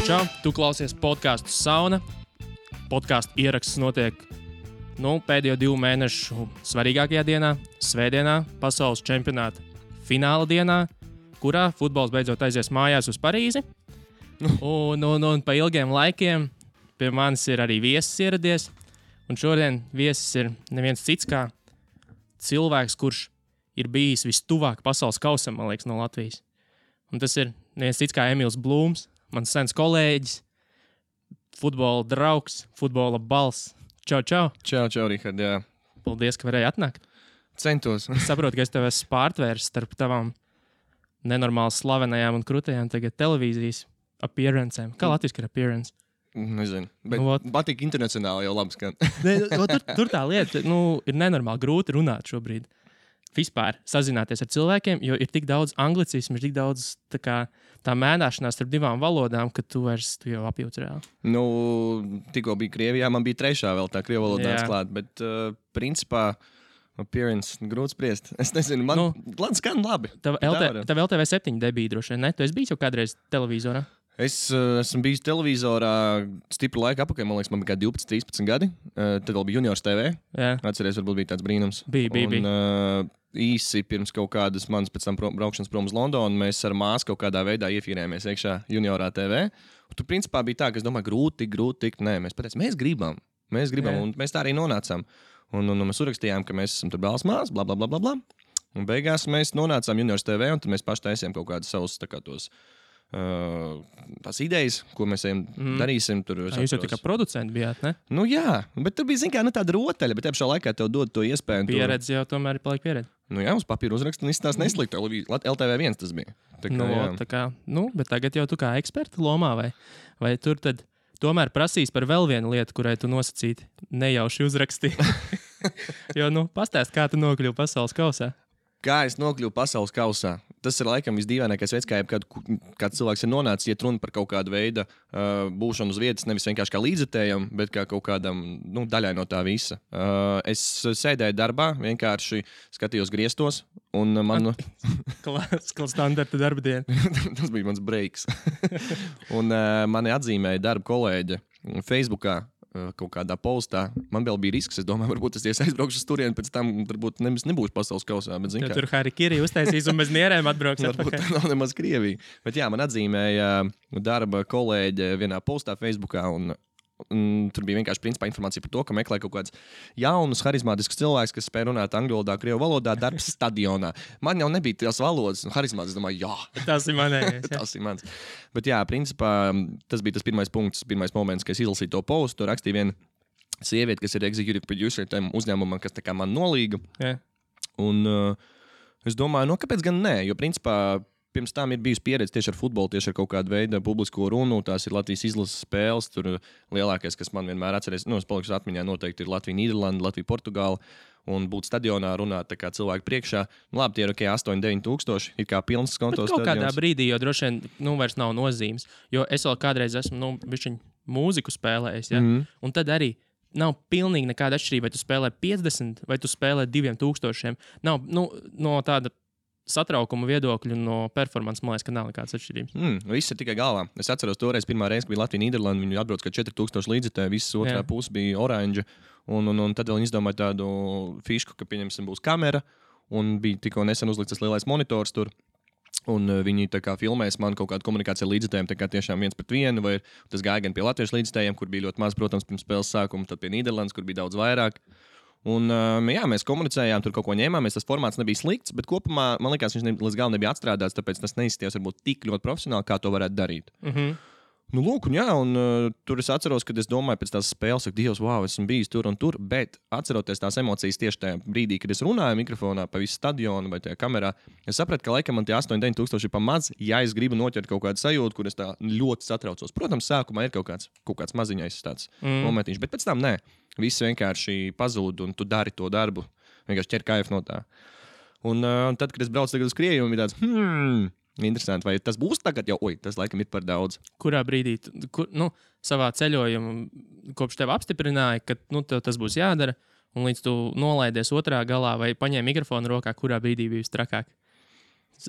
Čau! Tu klausies podcastu Sauna. Podcastu ieraksts notiek pēdējo 2 mēnešu svarīgākajā dienā, svētdienā, pasaules čempionāta fināla dienā, kurā futbols beidzot aizies mājās uz Parīzi. Un pa ilgiem laikiem pie manis ir arī viesis ieradies. Un šodien viesis ir neviens cits kā cilvēks, kurš ir bijis vistuvāk pasaules kausam, man liekas, no Latvijas. Un tas ir neviens cits kā Emīls Blūms, mans sens kolēģis, futbola draugs, futbola balss. Čau, čau! Čau, Rihard, jā. Paldies, ka varēji atnākt. Centos. Es saprotu, ka es tev esmu pārtvērs starp tavām nenormāli slavenajām un krūtajām tagad televīzijas appearancēm. Kā latviski ir appearance? Nezinu, bet patīk internacionāli jau labi skan. Tur tā lieta, ir nenormāli grūti runāt šobrīd. Vispār sazināties ar cilvēkiem, jo ir tik daudz anglicismu, ir tik daudz tā mēnāšanās starp 2 valodām, ka tu jau apjūti reāli. Tikko bija Krievijā, man bija 3. vēl tā krievu valodā atklāt, bet principā appearance grūti spriest. Es nezinu, man skan labi. Tev LTV 7 debija droši vien, ne? Tu esi bijis jau kādreiz televizorā? Es esmu bijis televizorā stipru laiku apakaļ, man liekas, man bija kā 12, 13 gadi. Tad vēl bija Juniors TV. Jā. Atceries, varbūt bija tāds brīnums. Bija. Īsi pirms kaut kādas manas pēc tam braukšanas prom uz Londonu, mēs ar māsu kaut kādā veidā iefīrējāmies iekšā Juniorā TV. Un tur principā bija tā, ka es domāju, grūti tikt. Nē, mēs pateicām, mēs gribam, un mēs tā arī nonācām. Un mēs uzrakstījām, ka mēs esam tur brālis māsas, bla, bla, bla, bla, bla. Un beigās mēs nonācām Juniors TV, un tad mēs paši taisījām kaut kādus savus tās idejas, ko mēs darīsim. Tur, jūs jau tā kā producenti bijāt, ne? Jā, bet tur bija, tāda rotaļa, bet pašā laikā tev dod to iespēju. Pieredze jau tomēr ir paliek pieredze. Uz papīra uzrakst un izstāst nesliktu. LTV1 tas bija. Bet tagad jau tu kā eksperta lomā, vai tur tad tomēr prasīs par vēl vienu lietu, kurai tu nosacīti nejauši uzrakstīji? Jo, pastāst, kā tu nokļuvi pasaules kausā. Kā es nokļuvu pasaules kausā? Tas ir laikam visdīvainākais veids, kā kāds cilvēks ir nonācis, iet runa par kaut kādu veidu būšanu uz vietas, nevis vienkārši kā līdzekļiem, bet kā kaut kādam daļai no tā visa. Es sēdēju darbā, vienkārši skatījos griestos, un man... Klasiskā standarta darba diena. Tas bija mans breiks. Un mani atzīmēja darba kolēģe Facebookā. Kaut kādā postā. Man vēl bija risks. Es domāju, varbūt es aizbraukšu uz turieni, pēc tam varbūt nebūšu pasaules kausā. Bet, tur Harikiri uztaisīs un bez nierēm atbrauks. Varbūt tā nav nemaz Krievija. Bet jā, man atzīmēja darba kolēģe vienā postā Facebookā, un tur bija vienkārši principā informācija par to, ka meklē kaut kāds jaunus, harizmātiskus cilvēkus, kas spēj runāt angļu valodā, krievu valodā, darbs stadionā. Man jau nebija tās valodas, un harizmātis, es domāju, jā. Tas ir manējais. Tas ir mans. Bet jā, principā tas bija tas pirmais punkts, pirmais moments, kad es izlasīju to postu. Tur rakstīja viena sieviete, kas ir executive producer tam uzņēmumam, kas tā kā man nolīga. Yeah. Un es domāju, kāpēc gan nē, jo principā pirms tam ir bijusi pieredze tieši ar futbolu, tieši ar kaut kādu veidu publisko runu. Tās ir Latvijas izlases spēles. Tur lielākais, kas man vienmēr atceries, es palikšu atmiņā, noteikti ir Latvija, Nīderlanda, Latvija, Portugāla. Un būt stadionā, runāt tā kā cilvēku priekšā. Labi, tie ir 8-9 tūkstoši, ir kā pilns kontos stadions. Kaut kādā brīdī, jo droši vien vairs nav nozīmes. Jo es vēl kādreiz esmu bišķiņ mūziku spēlējis, ja? Un tad arī nav pilnīgi nekāda atšķirība, vai tu spēlē 50 vai tu spēlē 2000. Nav no tāda satraukuma viedokļu no performances, man liekas, ka nav nekādas atšķirības. Viss ir tikai galvā. Es atceros toreiz pirmā reize, kad bija Latvija, Nīderlanda, viņi atbrauc kā 4000 līdzekļu, visas otrā puse bija oranža, un tad vēl viņi izdomāja tādu fišku, ka, pieņemsim, būs kamera, un bija tikko nesen uzlikts tas lielais monitors tur, un viņi tā kā filmēs man kaut kādu komunikāciju ar līdzekļiem, tā kā tiešām 1-1, vai tas gāja gan pie latviešu līdzekļiem, kur bija ļoti maz, protams, pirms spēles sākuma, tad pie Nīderlandes, kur bija daudz vairāk. Un, mēs komunicējām, tur kaut ko ņēmāmies, tas formāts nebija slikts, bet kopumā, man liekas, viņš līdz galam nebija atstrādāts, tāpēc tas neizskatījās varbūt tik ļoti profesionāli, kā to varētu darīt. Lūk, un tur es atceros, kad es domāju pēc tās spēles, ka Dievs, wow, esmu bijis tur un tur, bet atceroties tās emocijas tieši tajā brīdī, kad es runāju mikrofonā pa visu stadionu vai tajā kamerā, es sapratu, ka laikam man tie 8-9 tūkstoši ir pa maz, ja es gribu noķert kaut kādu sajūtu, kur es tā ļoti satraucos. Protams, sākumā ir kaut kāds maziņais tāds momentiņš, bet pēc tam nē. Viss vienkārši pazūd, un tu dari to darbu. Vienkārši ķer kaifu no tā. Un tad, kad es braucu tagad uz Krieviju, bija tāds, interesanti, vai tas būs tagad jau, tas laikam ir par daudz. Kurā brīdī, savā ceļojumā, kopš tev apstiprināja, ka tev tas būs jādara, un līdz tu nolaidies otrā galā vai paņēmi mikrofonu rokā, kurā brīdī bija vistrakāk?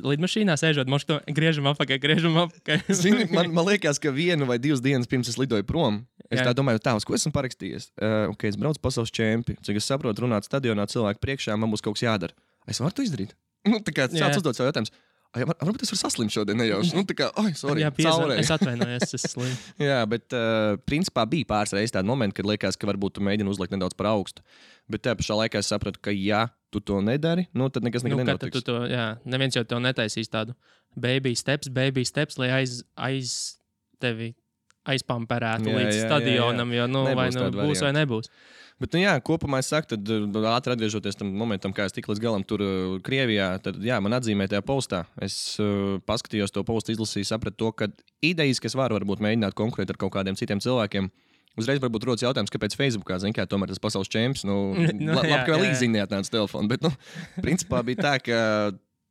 lidmašīnā sēžot, mošto griežam apakaļ. Zini, man liekas, ka 1 vai 2 dienas pirms es lidoju prom, es tā domāju, uz ko esmu parakstījies. Es braucu pasaules čempi, cik es saprotu, runāt stadionā cilvēku priekšā, man būs kaut kas jādara. Es varu to izdarīt? Tā kā sāc uzdot savu jautājumus. Varbūt es varu saslimt šodien nejauši. Tā kā, sorry, caurēji. Es atvainojos, es slimu. Jā, bet principā bija pāris reizes tādi momenti, kad liekas, ka varbūt tu mēģini uzlikt nedaudz par augstu. Bet tajā pašā laikā es sapratu, ka ja tu to nedari, tad nekas nenotiks. Neviens jau tev netaisīs tādu baby steps, lai aiz tevi aizpamperētu līdz stadionam, jo vai būs vai nebūs. Bet, kopumā es saku, tad ātri atgriežoties tam momentam, kā es tiku līdz galam tur Krievijā, tad, man atzīmēja tajā postā. Es paskatījos to postu, izlasīju, sapratu to, ka idejas, kas varbūt mēģināt konkurēt ar kaut kādiem citiem cilvēkiem, uzreiz varbūt rodas jautājums, kāpēc Facebookā, kā tomēr tas pasaules čemps, labi, ka vēl īsi neatnāca telefonu, bet, principā bija tā, ka,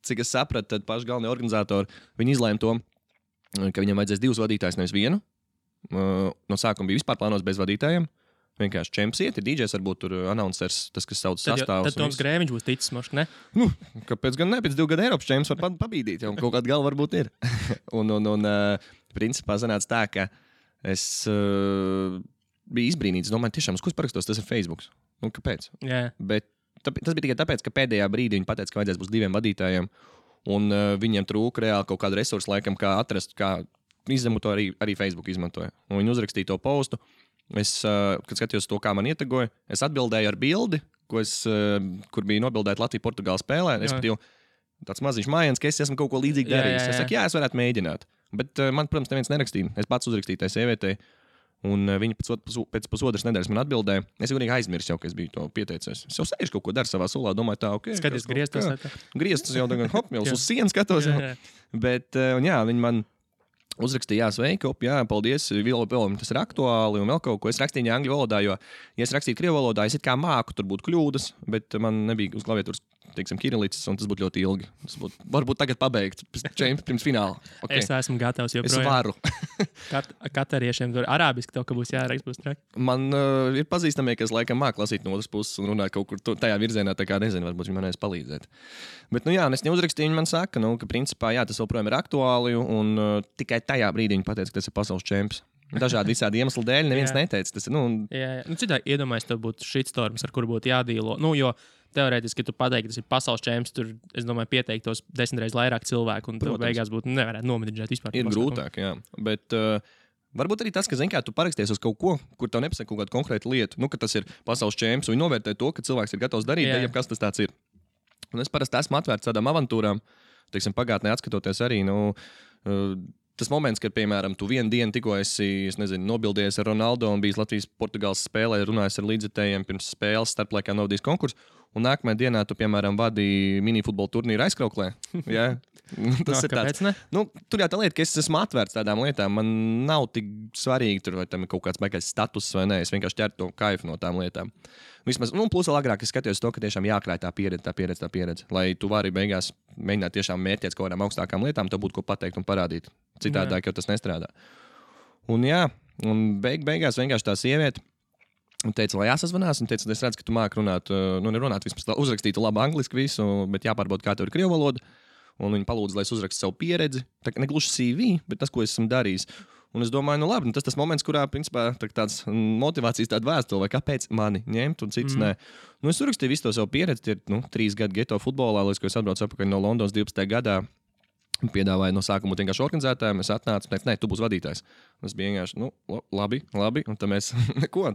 cik es sapratu, tad paši galvenie organizatori, viņi izlēma to, ka viņam vajadzēs 2 vadītājus, nevis 1. No sākuma bija vispār plānos bez vadītājiem. Vienkārši čemps iet, ir DJs, varbūt tur announcers, tas, kas sauc sastāvus. Tad Toms Grēviņš būs ticis, mošs, ne? Kāpēc gan ne? Pēc 2 gadu Eiropas čemps var pabīdīt, jau kaut kāda galva varbūt ir. un principā sanāca tā, ka es biju izbrīnīts. Domāju, tiešām, uz ko es parakstos, tas ir Facebooks. Kāpēc? Yeah. Bet tas bija tikai tāpēc, ka pēdējā brīdī viņi pateica, ka vajadzēs būs 2 vadītājiem, un viņiem trūka reāli kaut kādu resursu, laikam, kā atrast, kā izņemot to arī Facebook izmantoja. Un viņi uzrakstīja to postu. Es, kad skatījos to, kā man ietegoja, es atbildēju ar bildi, kur bija nobildēta Latvija-Portugāla spēlē. Es patīju tāds maziņš mājiens, ka es esmu kaut ko līdzīgi darījis. Es saku, es varētu mēģināt. Bet man, protams, neviens nerakstīja. Es pats uzrakstīju tai sievietei, un viņa pēc pusotras nedēļas man atbildēja. Es jau aizmirsu, ka es biju to pieteicies. Es jau sēžu kaut ko daru savā sulā, domāju, tā, ok. Skaties, grieztos. Grieztos jau tagad, jau uz sienas skatos. Bet, viņi man uzrakstīja, sveiki, paldies, vēl tas ir aktuāli un vēl kaut ko. Es rakstīju angļu valodā, jo, ja es rakstītu krievu valodā, es it kā māku, tur būtu kļūdas, bet man nebija uz klaviatūras, teiksim, kirilicis, un tas būtu ļoti ilgi. Tas būtu, varbūt tagad pabeigt pirms fināla. Okay. Es esmu gatavs joprojām. Es varu. Katariešiem tur arābiski tev, ka būs jāraksta, būs traki. Man ir pazīstamie, kas laikam māk lasīt no otras puses un runāt kaut kur tajā virzienā, tā kā nezinu, varbūt viņi man varēs palīdzēt. Bet, es neuzrakstīju, viņi man saka, ka principā, tas joprojām ir aktuāli, un tikai tajā brīdī viņi pateica, ka tas ir pasaules čemps. Dažādi visādi iemesli dēļ, neviens neteica. Tas ir, Citādi iedomājies, tev būtu shitstorms, ar kuru būtu jādīlo. Jo teorētiski, ja tu pateiktu, ka tas ir pasaules čemps, tur, es domāju, pieteiktos 10 reizes vairāk cilvēku, un tev beigās būtu nevarētu nomedžēt vispār. Ir grūtāk, jā. Bet varbūt arī tas, ka, tu paraksties uz kaut ko, kur tev nepasaka kaut kādu konkrētu lietu, ka tas ir pasaules čemps, un viņi novērtē to, ka cilvēks ir gatavs darīt, ja kas tas tāds ir. Un es parasti esmu atvērts tādām avantūrām, teiksim, pagātnē atskatoties arī, tas moments, kad, piemēram, tu vienu dienu tikko esi, nobildējies ar Ronaldo un bijis Latvijas-Portugāles spēlē, runājis ar līdzekļiem pirms spēles, starplaikā novadījis konkursu, un nākamajā dienā tu, piemēram, vadīji minifutbola turnīru aizkrauklē. Jā. Tas ir tāds. Tur jau tā lieta, ka es esmu atvērts tādām lietām. Man nav tik svarīgi, tur, vai tam ir kaut kāds baigais status vai nē. Es vienkārši ķeru to kaifu no tām lietām. Vismaz, plus vēl agrāk es skatījos to, ka tiešām jākrāj tā pieredze. Lai tu vari beigās mēģināt tiešām mērķēt kaut kādām augstākām lietām, tev būtu ko pateikt un parādīt. Citādāk jau tas nestrādā. Un beigās vienkārši tā sieviete teica, lai jāsazvanās, un teica, es redzu, ka tu māki runāt, nerunāt, vismaz uzrakstītu labu angliski visu, bet jāpārbauda, kā tev ir krievu valoda. Un viņi palūdza, lai es uzrakstu savu pieredzi. Tā kā negluži CV, bet tas, ko es esmu darījis. Un es domāju, labi, tas moments, kurā, principā, tāds motivācijas tāda vēstule, vai kāpēc mani ņemt un cits nē. Es uzrakstīju visu to savu pieredzi, tie ir 3 gadi geto futbolā, līdz ko es atbraucu atpakaļ no Londonas 12. gadā. Piedāvāju no sākuma vienkārši organizētājiem, es atnācu un teicu, nē, tu būsi vadītājs. Es biju vienkārši, labi, un tad mēs,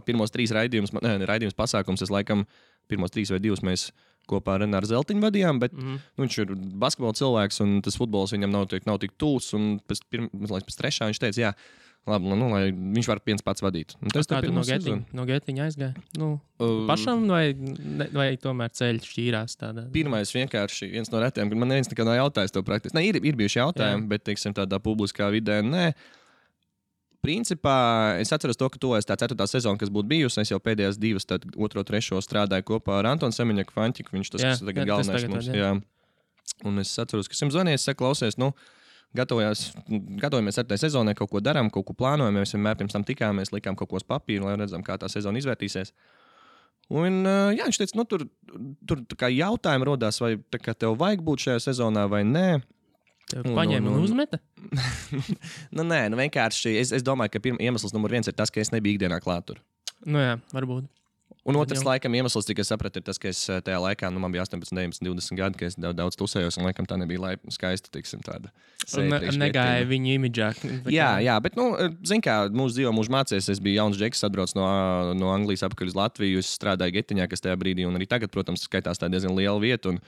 pirmos 3 raidījumus pasākums, es laikam pirmos 3 vai 2 mēs kopā ar Renāru Zeltiņu vadījām, bet viņš ir basketbola cilvēks, un tas futbols viņam nav tik tūs, un pēc 3. viņš teica, jā, labi, lai viņš var viens pats vadīt. Tas kā tu no Getiņa aizgāja? Pašam vai tomēr ceļš šķīrās tādā? Pirmais vienkārši viens no retiem, kad man neviens nekad nav jautājis to praktiski. Ne, ir bijuši jautājumi, bet, teiksim, tādā publiskā vidē, nē. Principā es atceros to, ka tuvojas tā 4. sezona, kas būtu bijusi. Es jau pēdējās 2, tad 2. 3. strādāju kopā ar Antonu Semiņaku Fantiku. Viņš tas tagad galvenais mums. Jā. Un es atceros, ka esmu zvanījis, saku, klausies, gatavojamies 4. sezonai, kaut ko darām, kaut ko plānojam. Mēs vienmēr pirms tam tikāmies, likām kaut ko uz papīru, lai redzam, kā tā sezona izvērtīsies. Un viņš teica, tur tur kā jautājumi rodās, vai tev vajag būt šajā sezonā vai nē. Tev paņēma un uzmeta? Nē, vienkārši es domāju, ka iemesls numur 1 ir tas, ka es nebiju ikdienā klāt tur. Nu jā, varbūt. Un otrs, laikam, iemesls, cik es sapratu, ir tas, ka es tajā laikā, man bija 18, 19, 20 gadi, ka es daudz tusējos, un laikam tā nebija skaista, tāda. Negāja viņu imidžā. Jā, bet, zin kā, mūsu dzīvo, mūsu mācēs, es biju jauns džeks, atbrauc no Anglijas apakaļ uz Latviju, es strādāju Getiņā, kas tajā brīdī, un arī tagad, protams, skaitās tā diezgan liela vieta, un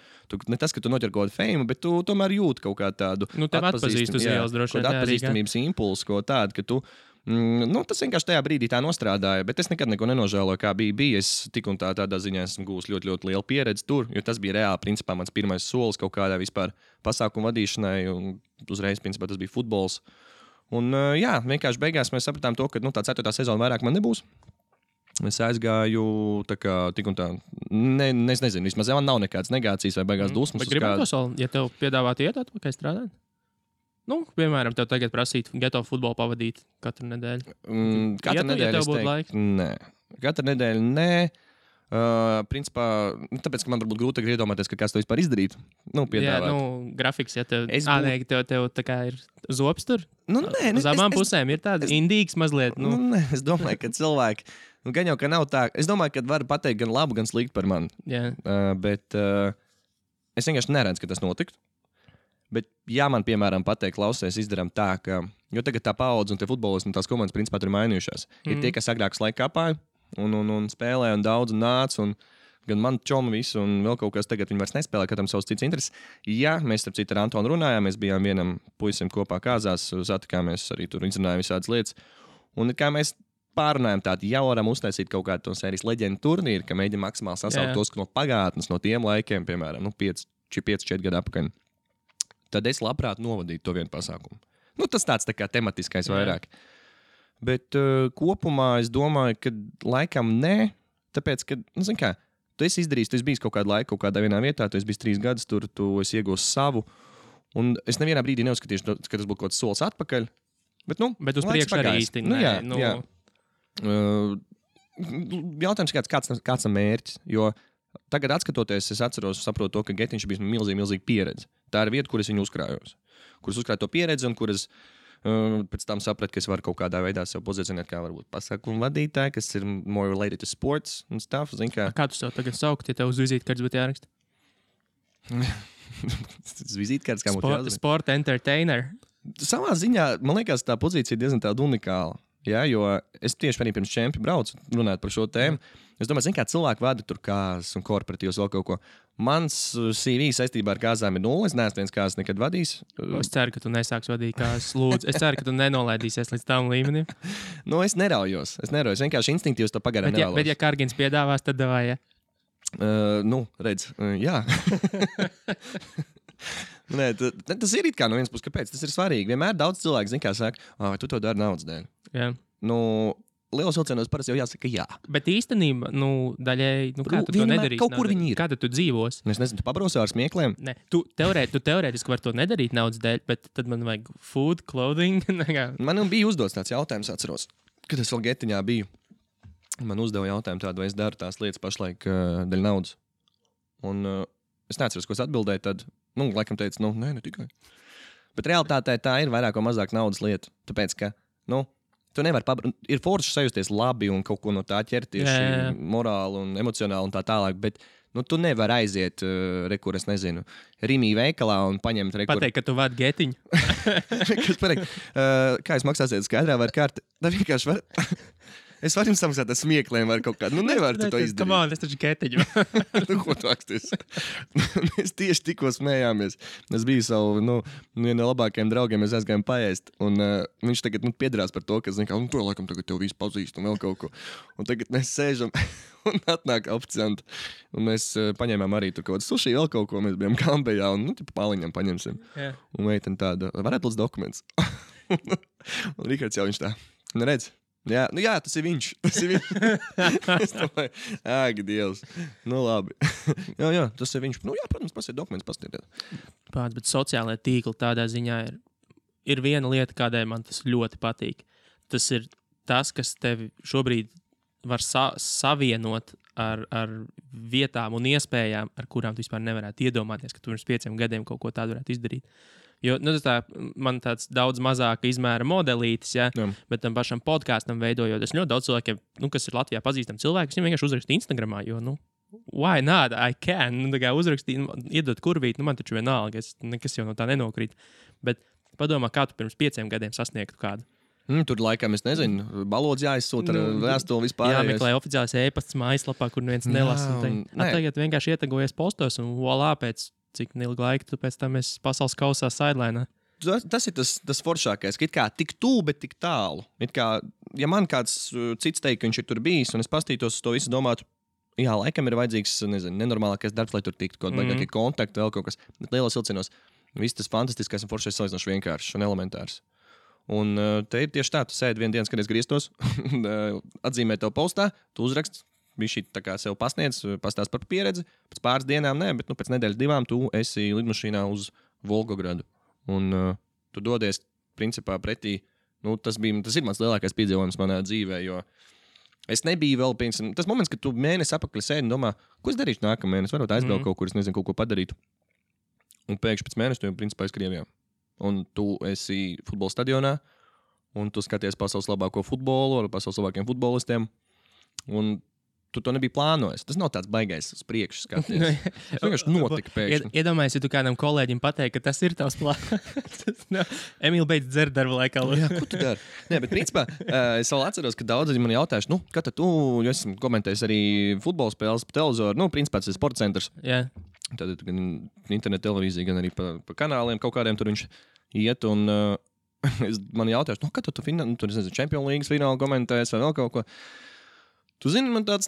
ne tas, ka tu noķer kaut kādu fame, bet tu tomēr jūti kaut kā tādu atpazīstamības impulsu, ko tādu, ka tu tas vienkārši tajā brīdī tā nostrādāja, bet es nekad neko nenožēloju, kā bija. Es tik un tādā ziņā esmu gūs ļoti, ļoti lielu pieredzi tur, jo tas bija reāli, principā, mans pirmais solis kaut kādā vispār pasākumu vadīšanai, un uzreiz, principā, tas bija futbols. Un, vienkārši beigās mēs sapratām to, ka tā 4. sezona vairāk man nebūs. Es aizgāju tik un tā, es nezinu, vismaz man nav nekādas negācijas vai beigās dusmas. Bet gribētu to soli, ja tev piedāvātu iet atpakaļ strādāt? Piemēram, tev tagad prasītu geto futbolu pavadīt katru nedēļu. Katru nedēļu, ja tev būtu laika? Nē. Katru nedēļu, nē. Principā, tāpēc, ka man varbūt grūti iedomāties, ka kāds to vispār izdarītu. Piedāvāt. Jā, grafiks, ja tev tā kā ir zops tur. Nē. Uz abām pusēm ir tāds indīgs mazliet. Nē, es domāju, ka cilvēki, gan jau, ka nav tā. Es domāju, ka var pateikt gan labu, gan sliktu par mani. Bet es vienkārši neredzu, ka tas notiktu. Bet, ja man, piemēram, pateikt, klausies, izdarām tā, ka, jo tagad tā paudze un tie futbolisti un tās komandas, principā, tur ir mainījušās. Ir tie, kas agrāk laika kāpāja un spēlēja un daudz un nāca, un gan man čomu visu, un vēl kaut kas tagad viņi vairs nespēlē, katram savs cits intereses. Ja mēs, starp citu, ar Antonu runājām, mēs bijām vienam puisim kopā kāzās, satikāmies arī tur, izrunājām visādas lietas, un kā mēs pārunājām tādu, ja varam uztaisīt kaut kādu to sērijas leģendu turnīru, ka mēģinām maksimāli sasaukt tos no pagātnes, no tiem laikiem, piemēram, 5-4 gadu apakaļ. Tad es labprāt novadītu to vienu pasākumu. Tas tāds tā kā tematiskais vairāk. Bet kopumā es domāju, ka laikam nē, tāpēc, ka, zin kā, tu esi izdarījis, tu esi bijis kaut kādu laiku, kaut kādā vienā vietā, tu esi bijis 3 gadus tur, tu esi iegūst savu, un es nevienā brīdī neuzskatīšu, ka tas būtu kaut kāds solis atpakaļ, bet, bet uz priekšu arī īsti. Jā. Jautājums, kāds ir mērķis, jo tagad, skatoties, es atceros, saprotu to, ka Getiņš bija milzīga pieredze. Tā ir vieta, kur es viņu uzkrājos. Kur es uzkrāju to pieredzi un kur es pēc tam sapratu, ka es varu kaut kādā veidā sev pozicionēt kā varbūt pasākumu vadītāju, kas ir more related to sports un stuff. Kā tu sev tagad saukt, ja tev uz vizītkartes būtu jāraksta? Vizītkartes, kā būtu jāzina? Sport entertainer. Savā ziņā, man liekas, tā pozīcija diezgan tāda unikāla. Ja, jo es tieši pirms čempi braucu runāt par šo tēmu. Es domāju, kā cilvēki vada tur kāzas un korporatīvas vēl kaut ko. Mans CV saistībā ar kāzām ir 0. Es neesmu viens kāzas nekad vadījis. Es ceru, ka tu nesāks vadīt kāzas. Lūdzu, es ceru, ka tu nenolaidīsies līdz tam līmenim. Es neraujos. Vienkārši instinktīvs to pagaidām nevēlos. Bet ja Kārgins piedāvās, tad davai, ja? Redz, jā. Nē, tas ir it kā no vienas puses, kāpēc tas ir svarīgi. Vienmēr daudz cilvēku zina, kā saka, tu to dari naudas dēļ. Jā. Lielos vilcienos parasti jau jāsaka jā. Bet īstenībā, daļēji, kā tu to nedarīsi? Kaut kur viņi ir. Kā tu dzīvos? Es nezinu, tu pabrausi ar smiekliem? Nē, tu teorētiski vari to nedarīt naudas dēļ, bet tad man vajag food, clothing. Man bija uzdots tāds jautājums, atceros, kad es vēl Getiņā biju. Man uzdeva jautājumu tādu, vai es daru tās lietas pašlaik dēļ naudas. Un es neatceros, ko es atbildēju, tad, laikam teicu, nē, ne tikai. Bet realitātē tā ir vairāk vai mazāk naudas lieta. Tāpēc, ka, tu nevari ir forši sajusties labi un kaut ko no tā ķert tieši morāli un emocionāli un tā tālāk, bet tu nevari aiziet, es nezinu, Rimī veikalā un paņemt Pateikt, ka tu vadi Getiņu. Kā jūs maksāsiet skaidrā vai karti? Tā vienkārši var... Es varu jums samaksāt ar smiekliem vai kaut kādu. Nevar tu to izdarīt. Come on, es taču Getiņu. Ko tu aksties? Mēs tieši tikko smējāmies. Es biju savu, vienu no labākajiem draugiem, mēs aizgājām paēst. Un viņš tagad piedrās par to, ka, to laikam tagad tev visu pazīst un vēl kaut ko. Un tagad mēs sēžam un atnāk oficianti. Un mēs paņēmām arī tur kaut kādu suši, vēl kaut ko. Mēs bijām Kambejā un, pāliņam paņemsim. Yeah. Un meitene tāda, varētu lūdzu dokumentus. Un Rikards jau viņš tā, redz. Jā, tas ir viņš. Es domāju, Dievs. Labi. jā, tas ir viņš. Protams, pasiet dokumentus, pastiet. Bet sociālajā tīkla tādā ziņā ir viena lieta, kādai man tas ļoti patīk. Tas ir tas, kas tevi šobrīd var savienot ar vietām un iespējām, ar kurām tu vispār nevarētu iedomāties, ka tu pirms 5 gadiem kaut ko tādu varētu izdarīt. Jo man tāds daudz mazāka izmēra modelītis, ja, bet tam pašam podkāstam veidojot, es ļoti daudz cilvēkiem, kas ir Latvijā pazīstami cilvēki, viņiem vienkārši uzraksta Instagramā, jo, why not, I can, uzrakstīt, iedot kurvīt, man taču vienalga, nekas jau no tā nenokrīt. Bet padomā, kā tu pirms 5 gadiem sasniegtu kādu. Tur laikam, es nezinu, balodz jāizsūta ar vēstuli vispār. Jāmeklē oficiālais e-pasts mājaslapā, kur neviens nelasa. Tagad vienkārši ietegojies postos un volā pēc cik ilgu laiku tu pēc tam esi pasaules kausā sidelinā. Tas ir tas foršākais, ka it kā tik tuvu, bet tik tālu. It kā, ja man kāds cits teikt, ka viņš ir tur bijis, un es pastītos uz to visu domātu, jā, laikam ir vajadzīgs, nezinu, nenormālākais darbs, lai tur tiktu kaut kādi kontakti, vēl kaut kas. Bet lielos vilcienos viss tas fantastiskais un foršais salīdzinoši vienkāršs un elementārs. Un te ir tieši tā, tu sēdi vienu dienu, kad es grieztos, atzīmē tev postā, tu uzrakst, bija šī tā kā sev pasniedz, pastāst par pieredzi, pēc pāris dienām, bet pēc nedēļas 2 tu esi lidmašīnā uz Volgogradu. Un tu dodies, principā, pretī, tas ir mans lielākais piedzīvojums manā dzīvē, jo es nebiju vēl, piemēram, tas moments, kad tu mēnesi apakaļ sēdi un domā, ko es darīšu nākamā mēnesi, varbūt aizbraukt kaut kur, es nezinu, kaut ko padarīt. Un pēkšņi pēc mēneša tu jau, principā, esi Krievijā. Un tu esi futbola stadionā, un tu skaties pasaules labāko futbolu ar pasaules labākiem futbolistiem. Un tu to nebija plānojis. Tas nav tāds baigais uz priekšu skaties. Tas vienkārši notika pēkšņi. Iedomājies, ja tu kādam kolēģim pateiksi, ka tas ir tavs plāns. Emīl beidz dzert darba laikā. Jā, ko tu dari? Nē, bet principā es vēl atceros, ka daudzi man jautājuši, kā tad tu, jo esmu komentējis arī futbola spēles pa televizoru, principā tas ir sporta centrs. Jā. Tad gan internet televīzija, gan arī pa kanāliem kaut kādiem tur viņš iet un man jautājuši, kā tad tu tur, es nezinu, Champions League finālu komentēs vai vēl kaut ko. Tu zini, man tāds,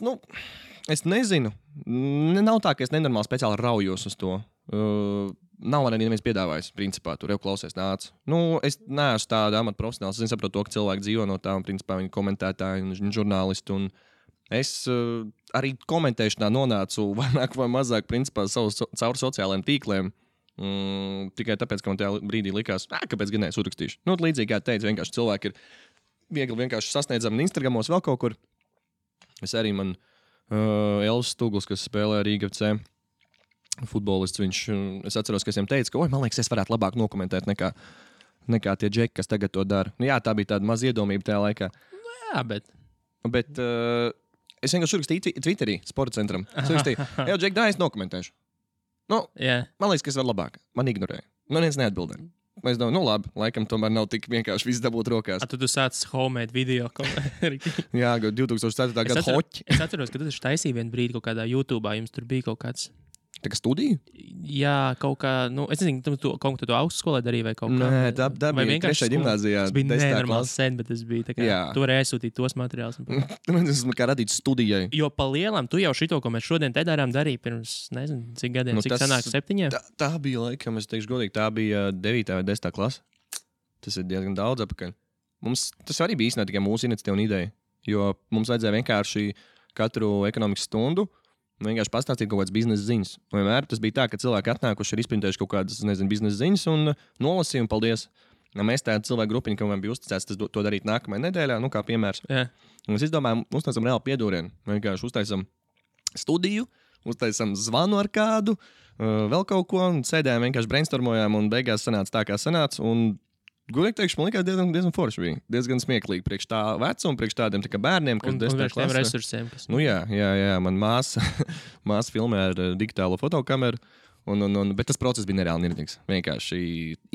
es nezinu. Nav tā, ka es nenormāli speciāli raujos uz to. Nav arī neviens piedāvājis, principā, tur jau klausies nāc. Es neesmu tāda amata profesionāls. Es saprotu to, ka cilvēki dzīvo no tā, un principā viņi komentētāji un žurnālisti. Un es arī komentēšanā nonācu vairāk vai mazāk, principā, caur sociālajiem tīkliem. Tikai tāpēc, ka man tajā brīdī likās, kāpēc gan es uzrakstīšu. Līdzīgi kā teicu, vienkārši cilvēki ir viegli vienkārši sasniedzami Instagramos vēl kaut kur. Es arī Elvis Stugls, kas spēlē Rīga FC futbolists, es atceros, ka es viņam teicu, ka, man liekas, es varētu labāk nokomentēt nekā tie džeki, kas tagad to dara. Jā, tā bija tāda maza iedomība tajā laikā. Jā, bet es vienkārši rakstīju Twitterī, sporta centram. Es rakstīju, džeki, es nokomentēšu. Man liekas, ka es varu labāk. Man ignorēja. Neviens neatbildēja. Es domāju, labi, laikam tomēr nav tik vienkārši viss dabūt rokās. Tad tu sāc homemade video. Jā, 2004. gada hoķi. Es atceros, ka tu taisīji vienu brīdi kaut kādā YouTube, jums tur bija kaut kāds. Tā kā studija? Jā, kaut kā, es nezinu, kaut ko tu augstskolē darīji vai kaut kā. Nē, tā bija 3. gimnāzijā. Tas bija nenormāls sen, bet tas bija tā kā, tu vari aizsūtīt tos materiālus. Tas kā radīts studijai. Jo pa lielam, tu jau šito, ko mēs šodien te darām, darīji pirms, nezinu, cik gadiem, cik sanāk 7? Tā bija laikam, es teikšu godīgi, tā bija 9. vai 10. klase. Tas ir diezgan daudz apakaļ. Tas arī bija īstenībā tikai mūsu iniciatīva un ideja, jo mums vajadzēja vienkārši katru ekonomikas stundu vienkārši pastāstīt kaut kādas biznesa ziņas. Vienmēr tas bija tā, ka cilvēki atnākuši ir izprintējuši kaut kādas, nezinu, biznesa ziņas un nolasīja un paldies. Mēs tādu cilvēku grupiņu, kam bija uzticēts to darīt nākamajā nedēļā, kā piemērs. Yeah. Un es izdomāju, uztaisam reāli piedūrienu. Vienkārši uztaisam studiju, uztaisam zvanu ar kādu, vēl kaut ko, un sēdējām vienkārši brainstormojām, un beigās sanāca tā, kā sanāca. Un gudīgi teikšu, man liekas, diezgan forši bija. Diezgan smieklīgi priekš tā vecuma, priekš tādiem tā bērniem, kas 10. klasē. Un resursiem. Jā, man māsa filmē ar digitālo fotokameru, bet tas process bija nereāli nirģīgs. Vienkārši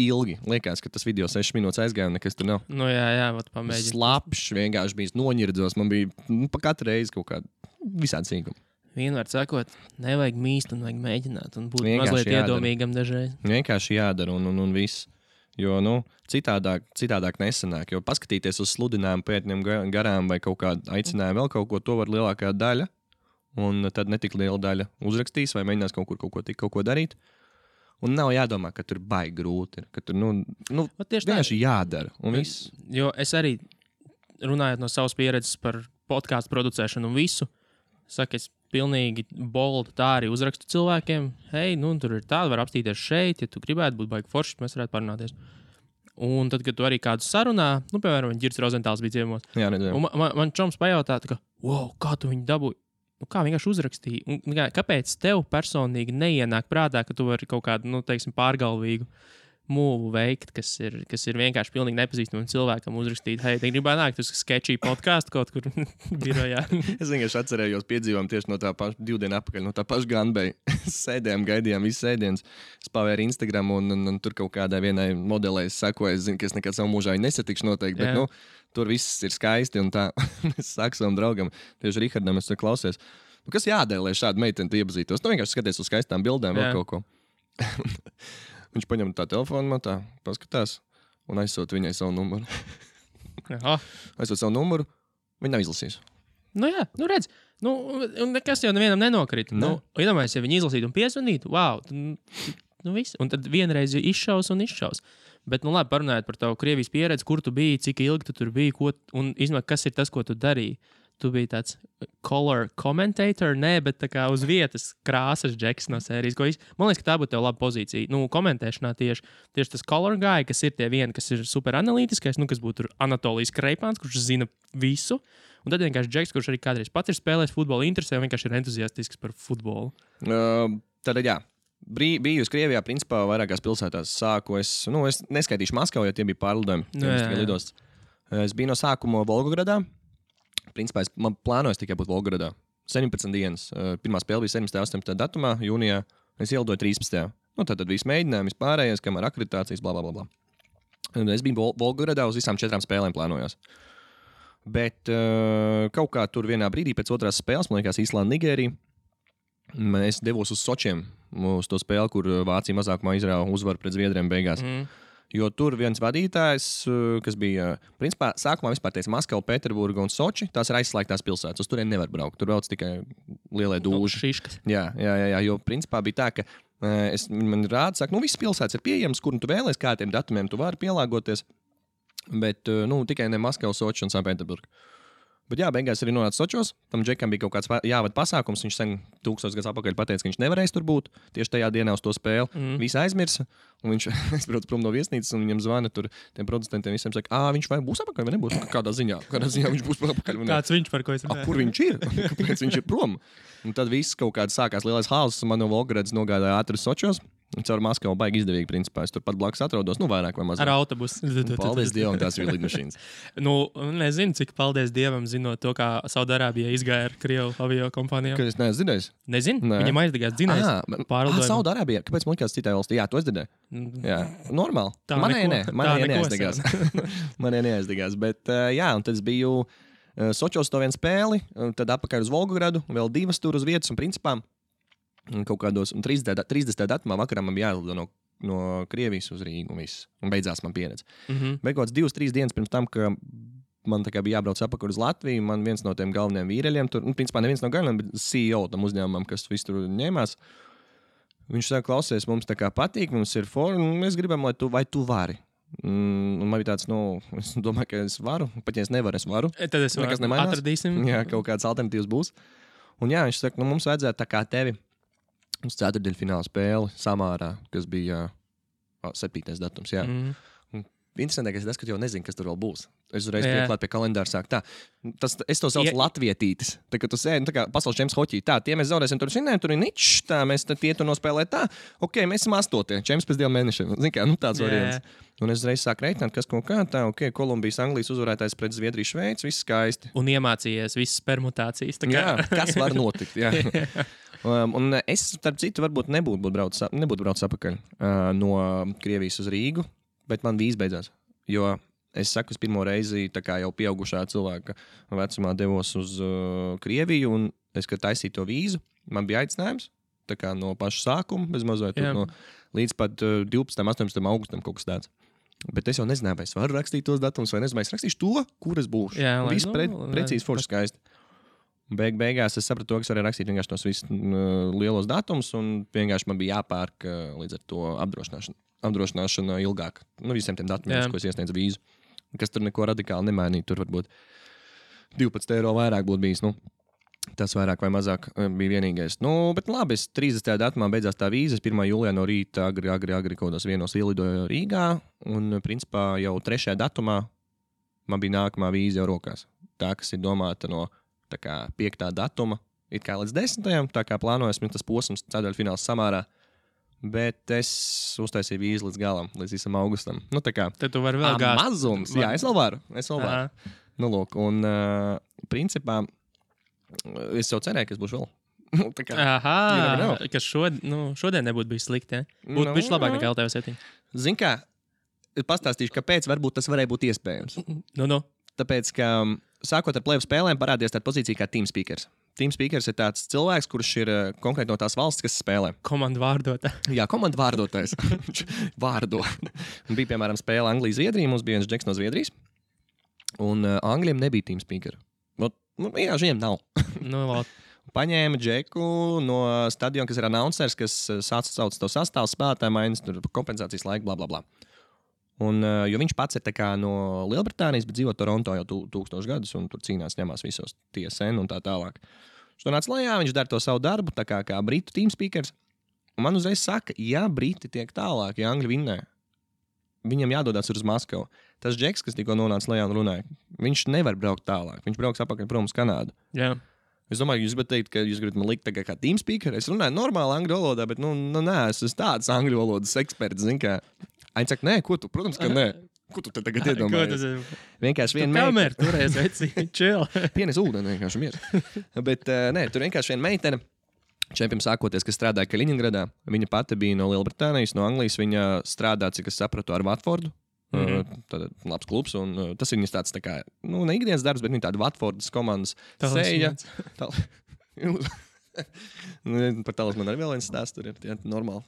ilgi. Liekas, ka tas video 6 minūtes aizgāja un nekas tur nav. Jā, pamēģināt. Slapšs, vienkārši bija noņirdzos. Man bija pa katru reizi kaut kāda visādi sīkuma. Vienmēr sakot, nevajag mīst un vajag mēģināt un būt mazliet iedomīgam dažreiz. Vienkārši jādara un viss. Jo, citādāk nesanāk. Jo paskatīties uz sludinājumu pētņiem garām vai kaut kādu aicinājumu vēl kaut ko, to var lielākā daļa. Un tad netik liela daļa uzrakstīs vai mēģinās kaut ko darīt. Un nav jādomā, ka tur baigi grūti ir. Ka tur, vienkārši jādara. Un viss. Jo es arī, runājot no savas pieredzes par podkāstu producēšanu un visu, saku, es pilnīgi boldu tā arī uzrakstu cilvēkiem. Hei, tur ir tāda, var apstīties šeit, ja tu gribētu būt baigi forši, mēs varētu parunāties. Un tad, kad tu arī kādu sarunā, piemēram, Girts Rozentāls bija ciemos. Jā, redzēju. Un man čoms pajautā, ka, kā tu viņu dabūji? kā vienkārši uzrakstīja. Kāpēc tev personīgi neienāk prātā, ka tu vari kaut kādu, pārgalvīgu mūvu veikt, kas ir vienkārši pilnīgi nepazīstamam cilvēkam uzrakstīt, hei, te gribētu nākt uz sketchy podkāstu kaut kur birojā. Es vienkārši atcerējos piedzīvojumu tieši no tā paša 2 dienu atpakaļ, no tā paša Granbeja. Sēdējām, gaidījām visu sēdienas. Es pavēru Instagram un tur kaut kādai vienai modelei es sekoju. Es zinu, ka es nekad savu mūžā nesatikšu noteikti, bet tur viss ir skaisti un tā. Es saku savam draugam, tieši Rihardam, es klausies. Kas jādara, lai šādu meiteni iepazītos? Vienkārši skaties uz skaistām bildēm vai kaut ko. Viņš paņem tā telefonu, man tā paskatās un aizsūt viņai savu numuru. Aizsūt savu numuru, viņa nav izlasījis. Redz, nekas jau nevienam nenokrita. Iedomājies, ja viņi izlasītu un piezvanītu, wow, viss. Un tad vienreiz izšaus. Bet, labi, parunājot par tavu Krievijas pieredzi, kur tu biji, cik ilgi tu tur biji, un izmēr, kas ir tas, ko tu darīji. Tu biji tāds color commentator, bet tā kā uz vietas krāsas džeks no sērijas. Man liekas, ka tā būtu tev laba pozīcija. Komentēšanā tieši tas color guy, kas ir tie vieni, kas ir super analītiskais, kas būtu Anatolijas Kreipāns, kurš zina visu. Un tad vienkārši džeks, kurš arī kādreiz pats ir spēlējis futbolu, interesē un vienkārši ir entuziastisks par futbolu. Tad, jā. Biju uz Krievijā, principā, vairākās pilsētās sāku. Es neskaitīšu Maskavu, jo tie bija pārlidojumi. Es biju no sākuma Volgogradā. Principā, man plānojas tikai būt Volgogradā. 17 dienas. Pirmā spēle bija 17. 18. datumā, jūnijā. Es ielidoju 13. Tad viss mēģinājums, vispārējais, kamēr akreditācijas, blablabla. Es biju Volgogradā uz visām 4 spēlēm plānojos. Bet kaut kā tur vienā brīdī pēc otrās spēles, man liekas, Īslanda, Nigērija, es devos uz Sočiem, uz to spēli, kur Vācija mazākumā izrāva uzvaru pret Zviedriem beigās. Jo tur viens vadītājs, kas bija, principā, sākumā vispār teica Maskava, Pēterburga un Soči, tās ir aizslēgtās pilsētas. Uz turien nevar braukt. Tur brauc tikai lielie dūži. Jā, jo principā bija tā, ka man rāda, saka, visas pilsētas ir pieejamas, kur tu vēlies, kādiem datumiem tu vari pielāgoties, bet tikai ne Maskava, Soči un Sanktpēterburga. Bet jā, beigās arī nonāca Sočos. Tam džekam bija kaut kāds jāvada pasākums. Viņš sen 1000 gadus atpakaļ pateica, ka viņš nevarēs tur būt tieši tajā dienā uz to spēli. Visi aizmirsa. Un viņš aizbrauc prom no viesnīcas un viņam zvana tur tiem producentiem visiem saka, viņš vai būs atpakaļ vai nebūs? Kādā ziņā viņš būs atpakaļ? Kāds viņš par ko es runāju? Kur viņš ir? Kāpēc viņš ir prom? Un tad viss kaut kāds sākās lielais hauss. Man no Volgogradas nogādāja ātri Sočos. Caur Maskavu baigi izdevīgi, principā. Es tur pat blakus atrodos, vairāk vai mazāk. Ar autobusu. Paldies Dievam, tās bija lidmašīnas. Nezinu, cik paldies Dievam, zinot to, kā Saudārābijā izgāja ar Krievu avio kompānijām. Kad es neesmu dzirdējis? Nezinu, viņam aizdegās dzinējs. Saudārābijā, kāpēc man likās citai valstī? Jā, to es dzirdēju. Jā, normāli. Manē neaizdegās. Bet jā, un tad es biju Sočos to vienu spēli, tad atpakaļ uz Volgogradu, vēl 2 tur uz vietas un principā. Kaut kādos 30. datumā vakarā man bija jālido no Krievijas uz Rīgu un beidzās man pieredze. Bet kaut kāds 2-3 dienas pirms tam, ka man bija jābrauc atpakaļ uz Latviju, man viens no tiem galvenajiem vīreļiem, tur, principā neviens no galvenajiem, bet CEO tam uzņēmumam, kas visu tur ņēmās, viņš saka, klausies, mums tā kā patīk, mums ir mēs gribam, lai tu vari. Un man bija tāds, es domāju, ka es varu, pat ja es nevaru, es varu. Tad es varu, atradīsim. Jā, kaut kāds alternatīvs būs. Un jā, viņš saka, mums vajadzētu tā kā tevi uz 4. fināla spēli Samārā, kas bija 7. datums. Jā. Interesantākais ir tas, ka jau nezinu, kas tur vēl būs. Es uzreiz pieklāt pie kalendāra sāk tā. Es to saucu latvietītis. Tā kā tu sēdi, tā kā pasaules čempions hoķī. Tā, tie mēs zaudēsim tur ir ničs, tā, mēs tie tur nospēlēt tā. Ok, mēs esam 8. čempions pēc 2 mēnešiem. Zini kā, tāds variants. Un es uzreiz sāku reiķināt, kas kaut kā tā, ok, Kolumbijas, Anglijas uzvarētājs pret Zviedriju, Šveici, viss skaisti. Un iemācījies visas permutācijas. Jā, kas var notikt, jā. Un es, starp citu, varbūt nebūtu braucis atpakaļ no Krievijas uz Rīgu, bet man vīza beidzās. Jo es saku, es pirmo reizi tā kā jau pieaugušā cilvēka vecumā devos uz Krieviju, un es, kad taisīju to vīzu, man bija aicinājums, tā kā no paša sākuma, bez mazliet līdz pat 12. 18. augustam kaut kas tāds. Bet es jau nezināju, vai es varu rakstīt tos datumus, vai nezinu, vai es rakstīšu to, kur es būšu. Jā, viss precīzi forši skaisti. Beigās es sapratu, ka es varēju rakstīt vienkārši tos visus lielos datumus, un vienkārši man bija jāpērk līdz ar to apdrošināšana ilgāk. Visiem tiem datumiem, ko es iesniedzu vīzu. Kas tur neko radikāli nemainīja. Tur varbūt 12 eiro vairāk būtu bijis. Tas vairāk vai mazāk bija vienīgais. Bet labi, es 30. datumā beidzās tā vīza. 1. jūlijā no rīta agri kaut kādos vienos ielidoju Rīgā. Un principā jau 3. datumā man bija nākamā vīza jau rokās. Tā, kas ir domāta no 5. datuma it kā līdz 10. Tā kā plānojas tas posms ceturtdaļfināls samārā. Bet es uztaisīju vīzu līdz galam, līdz visam augustam. Nu, tā kā Tad tu vari vēl gāzt. Mazums. Jā, es vēl varu. Nu, lūk, un principā es jau cerēju, ka es būšu vēl. Tā kā, ka šodien nebūtu bijis slikti, ja? Būtu bijis labāk nekā LTV7. Zin kā, pastāstīšu, kāpēc varbūt tas varēja būt iespējams. Tāpēc, ka sākot ar plēvu spēlēm parādījās tāda pozīcija kā team speakers. Team speakers ir tāds cilvēks, kurš ir konkrēti no tās valsts, kas spēlē. Komandu vārdotājs. Jā, komandu vārdotājs. Vārdo. Bija, piemēram, spēle Anglija-Zviedrija. Mums bija viens džeks no Zviedrijas. Un Angļiem nebija team speaker. Jā, viņiem nav. Paņēma džeku no stadiona, kas ir announcers, kas sauc to sastāvu spēlētāju maiņas, tur kompensācijas laika, bla, bla, bla. Un, jo viņš pats ir no Lielbritānijas, bet dzīvo Toronto jau 1000 gadus, un tur cīnās, ņemās visos TSN un tā tālāk. Viņš to nāca lejā, viņš dara to savu darbu, tā kā britu team speakers. Un man uzreiz saka, ja briti tiek tālāk, ja Angļi vinnē, viņam jādodas uz Maskavu. Tas džeks, kas tikko nonāca lejā un runāja, viņš nevar braukt tālāk. Viņš brauks atpakaļ prom uz Kanādu. Jā. Es domāju, jūs gribat teikt, ka jūs gribat man likt kā team speaker. Es runāju normāli angļu valodā, bet nē, es esmu tāds angļu valodas eksperts, zin kā. Aini saka, nē, ko tu? Protams, ka nē. Ko tu te tagad iedomājies? Vienkārši viena meitene. Kamerā turēs, veci, chill. Pienes ūdeni vienkārši miers. Bet nē, tur vienkārši viena meitene. Čempiem sākoties, kas strādāja Kaļiņingradā. Viņa pati bija no Lielbritānijas, no Anglijas. Viņa strādā, cik es sapratu, ar Watfordu. Tad labs klubs. Un tas viņas tāds tā kā, ne ikdienas darbs, bet viņa tāda Watfordas komandas seja. Par talas man arī vēl viens stāsts. Tur ir normāli.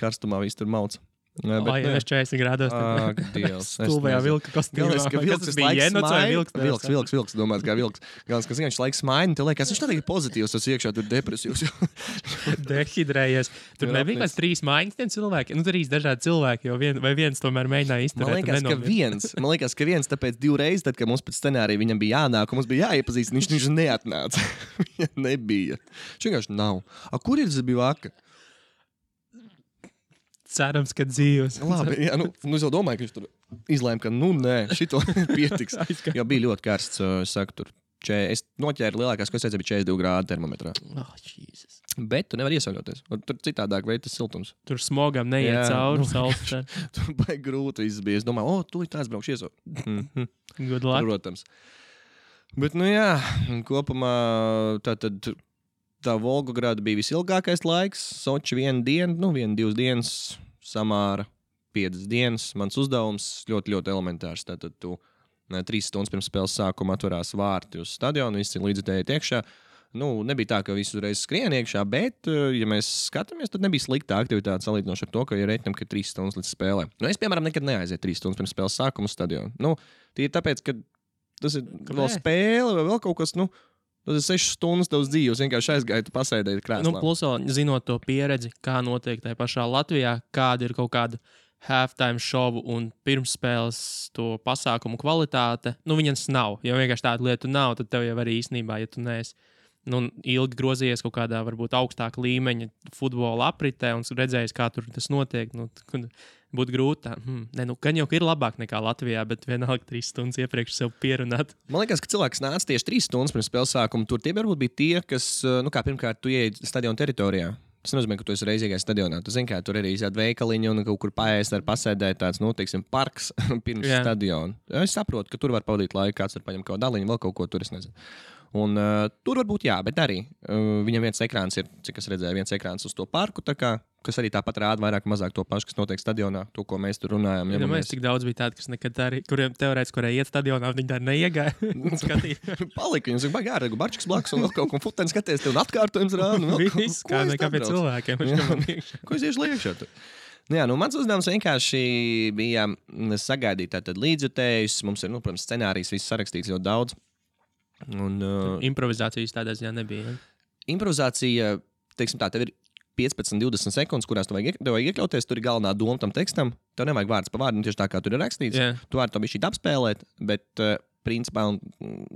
Karstumā viss tur mauc. Vai jau 40 grādos? Ak, Dievs. Stulbajā vilka kostīmā. Galvenais, ka vilks visu laiku vilks, domās, kā vilks. Galvenais, ka viņš laiks smaini, te liekas, viņš tā ir pozitīvs, tas iekšā tur depresīvs. Dehidrējies. Tur nebija kāds 3 mājiņas tiem cilvēkiem. 3 dažādi cilvēki, vai viens tomēr mēģināja izturēt. Man liekas, ka viens, tāpēc 2 reizes, tad, kad mums pēc scenārija viņam bija jānāk, un mums bija jāiepazīst, viņš neatnāca. Viņa nebija. Viņš vienkārši nav. Kur ir tas bija vaka? Cerams, ka dzīves. Labi, jā, es jau domāju, ka viņš tur izlēma, ka nē, šito pietiks. Jo bija ļoti karsts, es saku, tur. Es noķēru lielākās, ko es teicu, bija 42 grādi termometrā. Jesus. Bet tu nevari iesauļoties. Tur citādāk veid tas siltums. Tur smogam neiet cauri saules. Tur baigi grūti viss bija. Es domāju, tu tāds braukšu iesauļot. Good luck. Protams. Bet, jā, kopumā tā Volgograda bija visilgākais laiks. Soči 1 dienu, 1-2 dienas, Samāra 5 dienas. Mans uzdevums ļoti, ļoti elementārs. Tātad tu 3 stundas pirms spēles sākuma atverās vārti uz stadionu, visi līdzutēji iekšā. Nebija tā, ka visi uzreiz skrien iekšā, bet, ja mēs skatāmies, tad nebija slikta aktivitāte salīdzinoši ar to, ka ir reiķinam, ka 3 stundas līdz spēlē. Es, piemēram, nekad neaizietu 3 stundas pirms spēles sākuma uz stadionu. Tie ir tāpēc, ka tas ir vēl spēle vai vēl kaut kas, tas ir 6 stundas tavas dzīves, vienkārši aizgāju, pasēdēji krēslā. Plus vēl zinot to pieredzi, kā notiek tajā pašā Latvijā, kāda ir kaut kāda halftime šovu un pirmsspēles to pasākumu kvalitāte. Viņas nav. Ja vienkārši tāda lieta nav, tad tev jau arī īstenībā, ja tu neesi ilgi grozījies kaut kādā varbūt augstāka līmeņa futbola apritē un redzējis, kā tur tas notiek, būtu grūti. Gan jau ir labāk nekā Latvijā, bet vienalga 3 stundas iepriekš sev pierunāt. Man liekas, ka cilvēks nāca tieši 3 stundas pirms spēles sākuma. Tur tie varbūt bija tie, kas, kā pirmkārt, tu ieej stadiona teritorijā. Tas nozīmē, ka tu esi reizīgais stadionā. Tu zini, kā tur arī ir veikaliņi un kaut kur paēst ar pasēdēt tāds, teiksim, parks pirms stadiona. Es saprotu, ka tur var pavadīt laiku, kāds var paņemt kaut daliņu, vēl kaut ko tur, es nezinu. Un tur varbūt jā, bet arī viņam viens ekrāns ir, cik es redzēju, viens ekrāns uz to parku, kas arī tāpat rāda vairāk mazāk to pašu, kas notiek stadionā, to, ko mēs tur runājam. Ja mēs cik daudz bija tādi, kas nekad arī, kuriem teorētiski, kuriem iet stadionā, viņi tā neiegāja. Palika, viņam saka, baigi ārēgu barčiks blakus un vēl kaut ko futeni skaties, tev un atkārtojums rāda. Viss, kā nekā pie cilvēkiem. Ko es iešu liekšā tur? Mans uzdevums vienkārši bija sagaidīt tātad līdzjutējus. Mums ir, protams, scenārijs, viss sarakstīts ļoti daudz. Improvizācijas tādā ziņā nebija. Improvizācija, teiksim tā, tev ir 15-20 sekundes, kurās tev vajag iekļauties. Tur ir galvenā doma tam tekstam. Tev nevajag vārds pa vārdam, tieši tā kā tur ir rakstīts. Tu vari to bišķīt apspēlēt, bet principā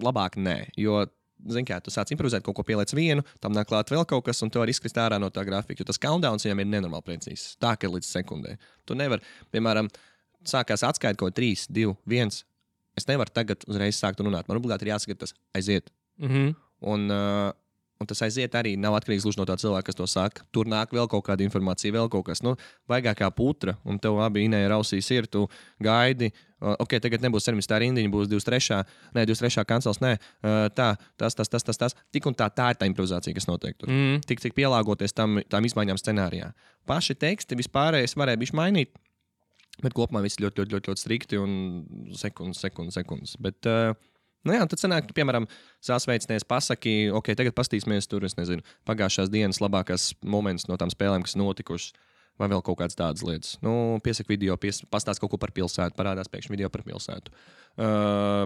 labāk nē. Jo, zini kā, tu sāc improvizēt, kaut ko pieliec vienu, tam nāk klāt vēl kaut kas, un tu vari izkrist ārā no tā grafika. Jo tas countdowns viņam ir nenormāli precīzs. Tā, ka ir līdz sekundē. Tu nevar, piemēram, sākās atskaita kaut 3, 2, 1. Es nevaru tagad uzreiz sākt runāt. Man obligāti ir jāsaka, tas aiziet. Un Un tas aiziet arī nav atkarīgs no tā cilvēka, kas to saka. Tur nāk vēl kaut kāda informācija, vēl kaut kas. Vaigākā putra, un tev abi Inēja rausīs ir, tu gaidi. Ok, tagad nebūs 17. rindiņa, būs 23. Nē, 23. kancels, nē. Tas. Tik un tā ir tā improvizācija, kas notiek tur. Tik pielāgoties tām izmaiņām scenārijā. Paši teksti vispārējais varēja bišķi mainīt, bet kopumā viss ļoti, ļoti, ļoti, ļoti strikti un sekundes. Bet, tad sanāk, piemēram, sasveicinies pasaki, ok, tagad pastīsimies tur, es nezinu, pagājušās dienas labākās moments no tām spēlēm, kas notikušas, vai vēl kaut kādas tādas lietas. Piesaka video, pastāst kaut ko par pilsētu, parādās pēkšņi video par pilsētu.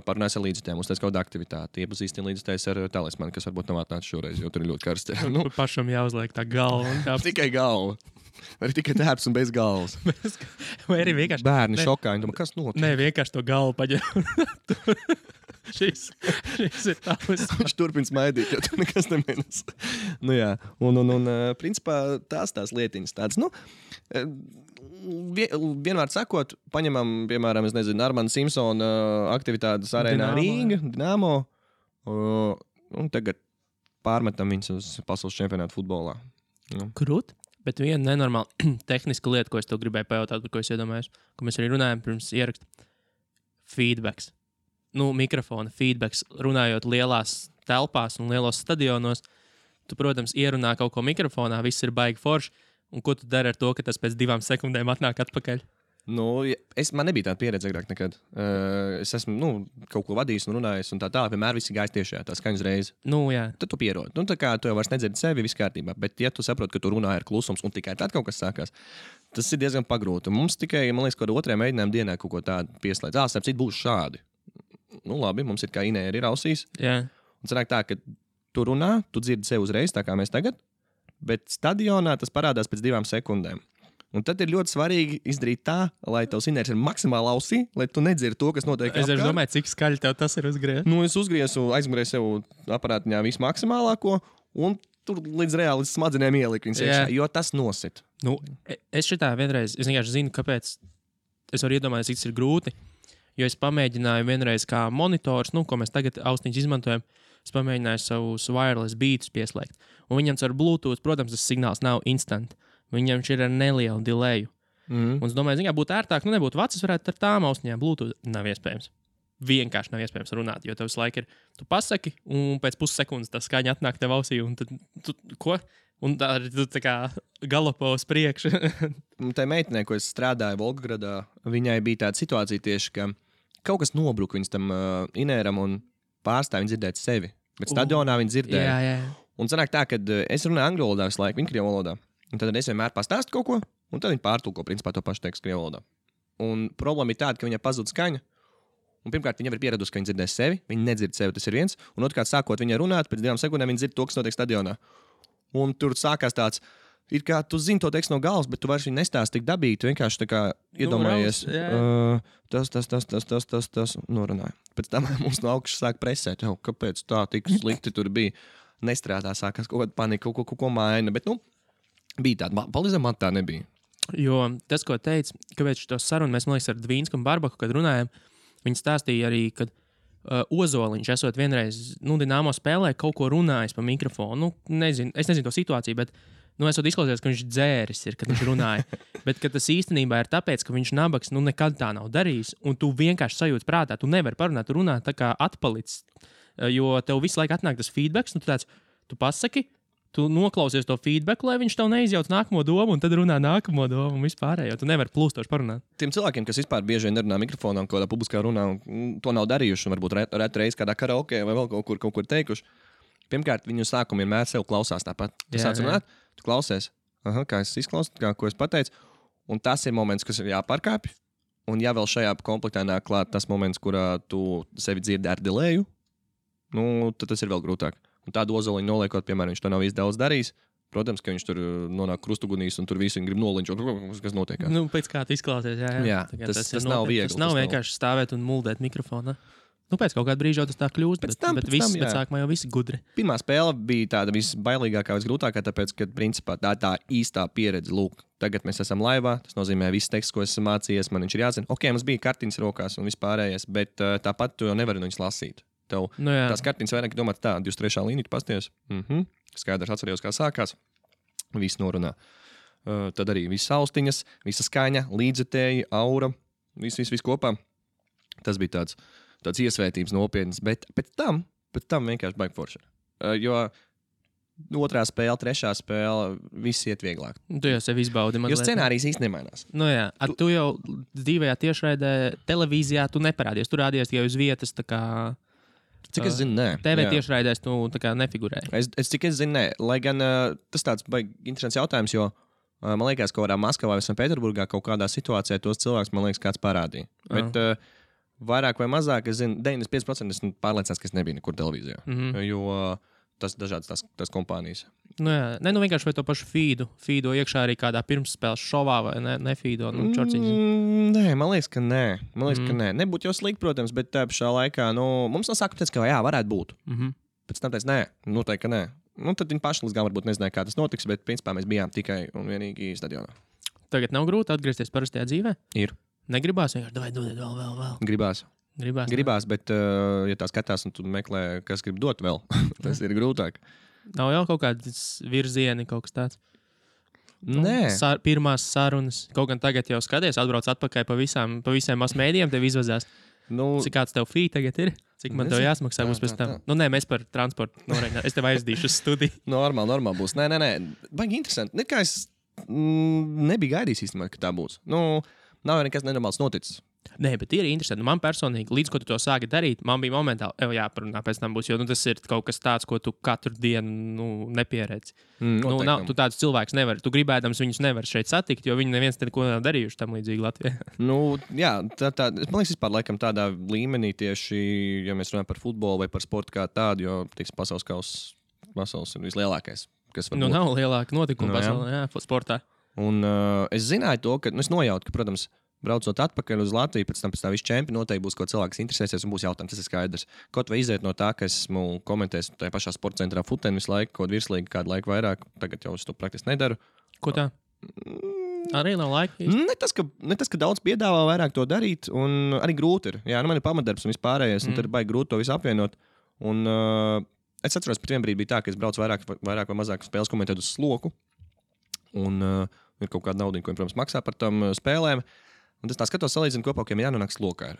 Parunājas ar līdzekļiem, uztais kaut kāda aktivitāte, iepazīstina līdzekļus ar talismanu, kas varbūt nav atnācis šoreiz, jo tur ir ļoti karsti. Pašam jāuzliek tā galva. Tikai galva. Vai tikai tērps un bez galvas. Vai arī vienkārši... Bērni šokā, viņi domā, kas notiek? Nē, vienkārši to galvu paģēr. Šis ir tavs. Viņš turpina smaidīt, jo tur nekas nemēnes. Jā. Un principā tās lietiņas tādas. Vienmēr sakot, paņemam, piemēram, es nezinu, Armanda Simpsona aktivitātes arēnā Rīga, Dinamo, un tagad pārmetam viņus uz pasaules čempionātu futbolā. Krūt? Bet viena nenormāla tehniska lieta, ko es tev gribēju pajautāt, par ko es iedomājos, ko mēs arī runājam pirms ieraksta. Feedbacks. Mikrofona feedbacks, runājot lielās telpās un lielos stadionos. Tu, protams, ierunā kaut ko mikrofonā, viss ir baigi forši. Un ko tu dari ar to, ka tas pēc 2 sekundēm atnāk atpakaļ? Man nebija tāda pieredze agrāk nekad. Es esmu kaut ko vadījis un runājis, un tā vienmēr viss gājis tiešā, tā skaņas reize. Jā. Tad tu pierodi. Tā kā tu jau vairs nedzirdi sevi, viss kārtībā. Bet, ja tu saproti, ka tu runā ar klusums un tikai tad kaut kas sākās, tas ir diezgan pagrūti. Mums tikai, man liekas, kaut kādā 2. mēģinājuma dienā kaut ko tādu pieslēdz. Starp citu, būs šādi. Labi, mums ir kā Inēja ir ausīs. Yeah. Un sanāk tā, ka tu runā, tu dzirdi sevi uzreiz, tā kā mēs tagad, bet stadionā tas parādās pēc 2 sekundēm. Un tad ir ļoti svarīgi izdarīt tā, lai tavs inērs ir maksimāli ausī, lai tu nedzirdi to, kas notiek. Es domāju, cik skaļi tev tas ir uzgriezt. Es uzgriezu, aizmugurēju sev aparātiņā visu maksimālāko, un tur līdz reāli smadzenēm ieliku viņas iekšā, jo tas nosit. Es šitā vienreiz, es vienkārši zinu, kāpēc es varu iedomāties, cik tas ir grūti. Jo es pamēģināju vienreiz kā monitors, ko mēs tagad austiņus izmantojam, es pamēģināju savus wireless beatus pieslēgt. Un viņam ar Bluetooth, protams, tas signāls nav instant. Viņam ir ar nelielu delayu. Un es domāju, būtu ērtāk, nebūtu vecas, varētu ar tām austiņām Bluetooth. Nav iespējams. Vienkārši nav iespējams runāt, jo tev visu laiku ir, tu pasaki, un pēc pussekundes tā skaņa atnāk tev ausī, un tad, ko? Un tā arī tu tā kā galopo uz priekšu. Tā meitenē, ko es strādāju Volgagradā, viņai bija tāda situācija tieši, ka kaut kas nobruka viņas tam inēram un pārstāja viņa dzirdēt sevi. Bet stadionā viņa dzirdēja. Jā. Un sanāk tā, ka es runāju angļu valodā visu laiku, viņa krievu valodā. Un tad es vienmēr pastāstu kaut ko, un tad viņa pārtulko principā to pašu tekstu krievu valodā. Un problēma ir tāda, ka viņai pazūd skaņa. Un pirmkārt, viņa jau ir pieradusi, ka viņa dzirdēs sevi, viņa nedzird sevi, tas ir viens. Un otrkārt, sākot viņai runāt, pēc 2 sekundēm viņa dzird to, kas notiek stadionā. Un tur sākās tāds, ir kā tu zini to tekstu no galvas, bet tu vairs viņu nestāsti tik dabīgi, tu vienkārši tā kā iedomājies, tas, norunāja. Pēc tam mums no augšas sāk presēt, kāpēc tā tik slikti tur bija. Nestrādā, sākās kaut kāda panika, kaut ko maina, bet, bija tāda, palīdzēm man tā nebija. Jo tas, ko teica, kāpēc šo sarunu mēs, man liekas, ar Dvīnsku un Barbaku, kad runājam, viņi stāstīja arī, kad Ozoliņš esot vienreiz, Dinamo spēlē kaut ko runājis pa mikrofonu. Es nezinu to situāciju, bet, esot izklausies, ka viņš dzēris ir, kad viņš runāja. Bet tas īstenībā ir tāpēc, ka viņš nabaks, nekad tā nav darījis, un tu vienkārši sajūti prātā, tu nevari parunāt, tu runā tā kā atpalicis, jo tev visu laiku atnāk tas feedbacks, tu pasaki, tu noklausies to feedback, lai viņš tev neizjauc nākamo domu, un tad runā nākamo domu un vispārējo. Tu nevari plūstoši parunāt. Tiem cilvēkiem, kas vispār bieži vien nerunā mikrofonā un kādā publiskā runā, un to nav darījuši, un varbūt retreiz kādā karaokē vai vēl kaut kur teikuši, pirmkārt, viņu sākumu vienmēr sev klausās tāpat. Tu sāc runāt, tu klausies, kā es izklausos, ko es pateicu, un tas ir moments, kas ir jāpārkāpj, un ja vēl šajā komplektā nāk klāt tas moments, kurā tu sevi dzirdi ar delayu, tad tas ir vēl grūtāk. Un tādu Ozoliņu noliekot, piemēram, viņš to nav īsti daudz darījis. Protams, ka viņš tur nonāk krustugunīs un tur visi grib nolinčot, kas notiek. Pēc kā tu izklausies, jā. Tas nav viegli. Tas nav vienkārši stāvēt un muldēt mikrofonu. Pēc kaut kāda brīža tas tā kļūst, bet sākumā jau visi gudri. Pirmā spēle bija tāda visbailīgākā, visgrūtākā, tāpēc, ka principā tā īstā pieredze, lūk, tagad mēs esam laivā, tas nozīmē viss teksts, ko esam mācījies, man viņš ir jāzina. Ok, mums bija kartiņas rokās un vispārējais, bet tāpat tu jau nevari no viņas lasīt. Tev tās kartiņas vairāk domāt tā, 23. līnija pasties. Skaidrs atcerējos, kā sākās. Viss norunā. Tad arī viss austiņas, visa skaņa, līdzekļi, aura, viss kopā. Tas bija tāds iesvētības nopietns, bet pēc tam vienkārši baigi forši. Jo otrā spēle, trešā spēle, viss iet vieglāk. Tu jau sevi izbaudi. Jo scenārijs īsti nemainās. Nu jā, tu jau dzīvajā tiešraidē televīzijā tu neparādies. Tu rādies tikai uz vietas, tā kā... Cik es zinu, nē. TV tiešraidēs tu tā kā nefigurēji. Cik es zinu, nē. Lai gan tas tāds baigi interesants jautājums, jo man liekas, ka kādā Maskavā vai Sanktpēterburgā kaut kādā situācijā tos cilvēkus, man liekas, kāds parādīja. Bet vairāk vai mazāk, es zinu, 95% esmu pārliecināts, ka es nebiju nekur televīzijā. Jo tas dažādas tās kompānijas. Nu jā, vienkārši vai to pašu feedo iekšā arī kādā pirmsspēles šovā vai nefeedo, Nē, man liekas, ka nē. Nebūtu jau slikti, protams, bet tā pašā laikā, mums no sākuma teica, ka jā, varētu būt. Pēc tam teica, nē, noteikti, ka nē. Tad viņi paši līdz galam varbūt nezināja, kā tas notiks, bet principā mēs bijām tikai un vienīgi stadionā. Tagad nav grūti atgriezties parastajā dzīvē? Ir. Negribās vienkārši vēl. Gribās, bet ja tā skatās un tu meklē, kas grib dot vēl, tas ir grūtāk. Nav jau kaut kāds virzieni, kaut kas tāds? Nē. Pirmās sarunas. Kaut gan tagad jau skaties, atbrauc atpakaļ pa visiem masmēdiem, tev izvazās. Cik kāds tev fī tagad ir? Cik man tev jāsmaksā būs pēc tam? Nē, mēs par transportu norēķinām. Es tev aizdīšu uz studiju. Normāli būs. Nē. Baigi interesanti. Nekā es nebiju gaidījis īstenībā, ka tā būs. Nav jau nekas nenormāls noticis. Nē, bet ir interesanti. Man personīgi, līdz ko tu to sāki darīt, man bija momentāli, jāparunā pēc tam būs, jo tas ir kaut kas tāds, ko tu katru dienu nepieredzi. Tu tādus cilvēkus nevari. Tu gribēdams viņus nevar šeit satikt, jo viņi neviens neko nav darījuši tam līdzīgi Latvijā. Jā, man liekas, vispār laikam tādā līmenī tieši, ja mēs runājam par futbolu vai par sportu kā tādu, jo pasaules ir vislielākais, kas var būt. Nav lielāka notikuma pasaulē, sportā. Un es zināju to, ka es nojautu, ka, protams, braucot atpakaļ uz Latviju, pēc tam viss čempions noteikti būs kaut cilvēks, kas interesēsies un būs jautājums. Tas ir skaidrs. Kaut vai iziet no tā, ka esmu komentējis tajā pašā sporta centrā Futeni visu laiku, kaut virslīgi kādu laiku vairāk. Tagad jau es to praktiski nedaru. Ko tā? Arī nav laika. Ne tas, ka daudz piedāvā vairāk to darīt, un arī grūti ir. Jā, man ir pamatdarbs un vispārējais, un tad ir baigi grūti to visu apvienot. Un es atceros, ka vienbrīd bija tā, ka es braucu vairāk vai mazāk spēles komentēt uz sloku. Un ir kaut kāda nauda, ko, protams, maksā par tām spēlēm. Un es tā skatos, salīdzinu kopā, ka jānonāk slokā.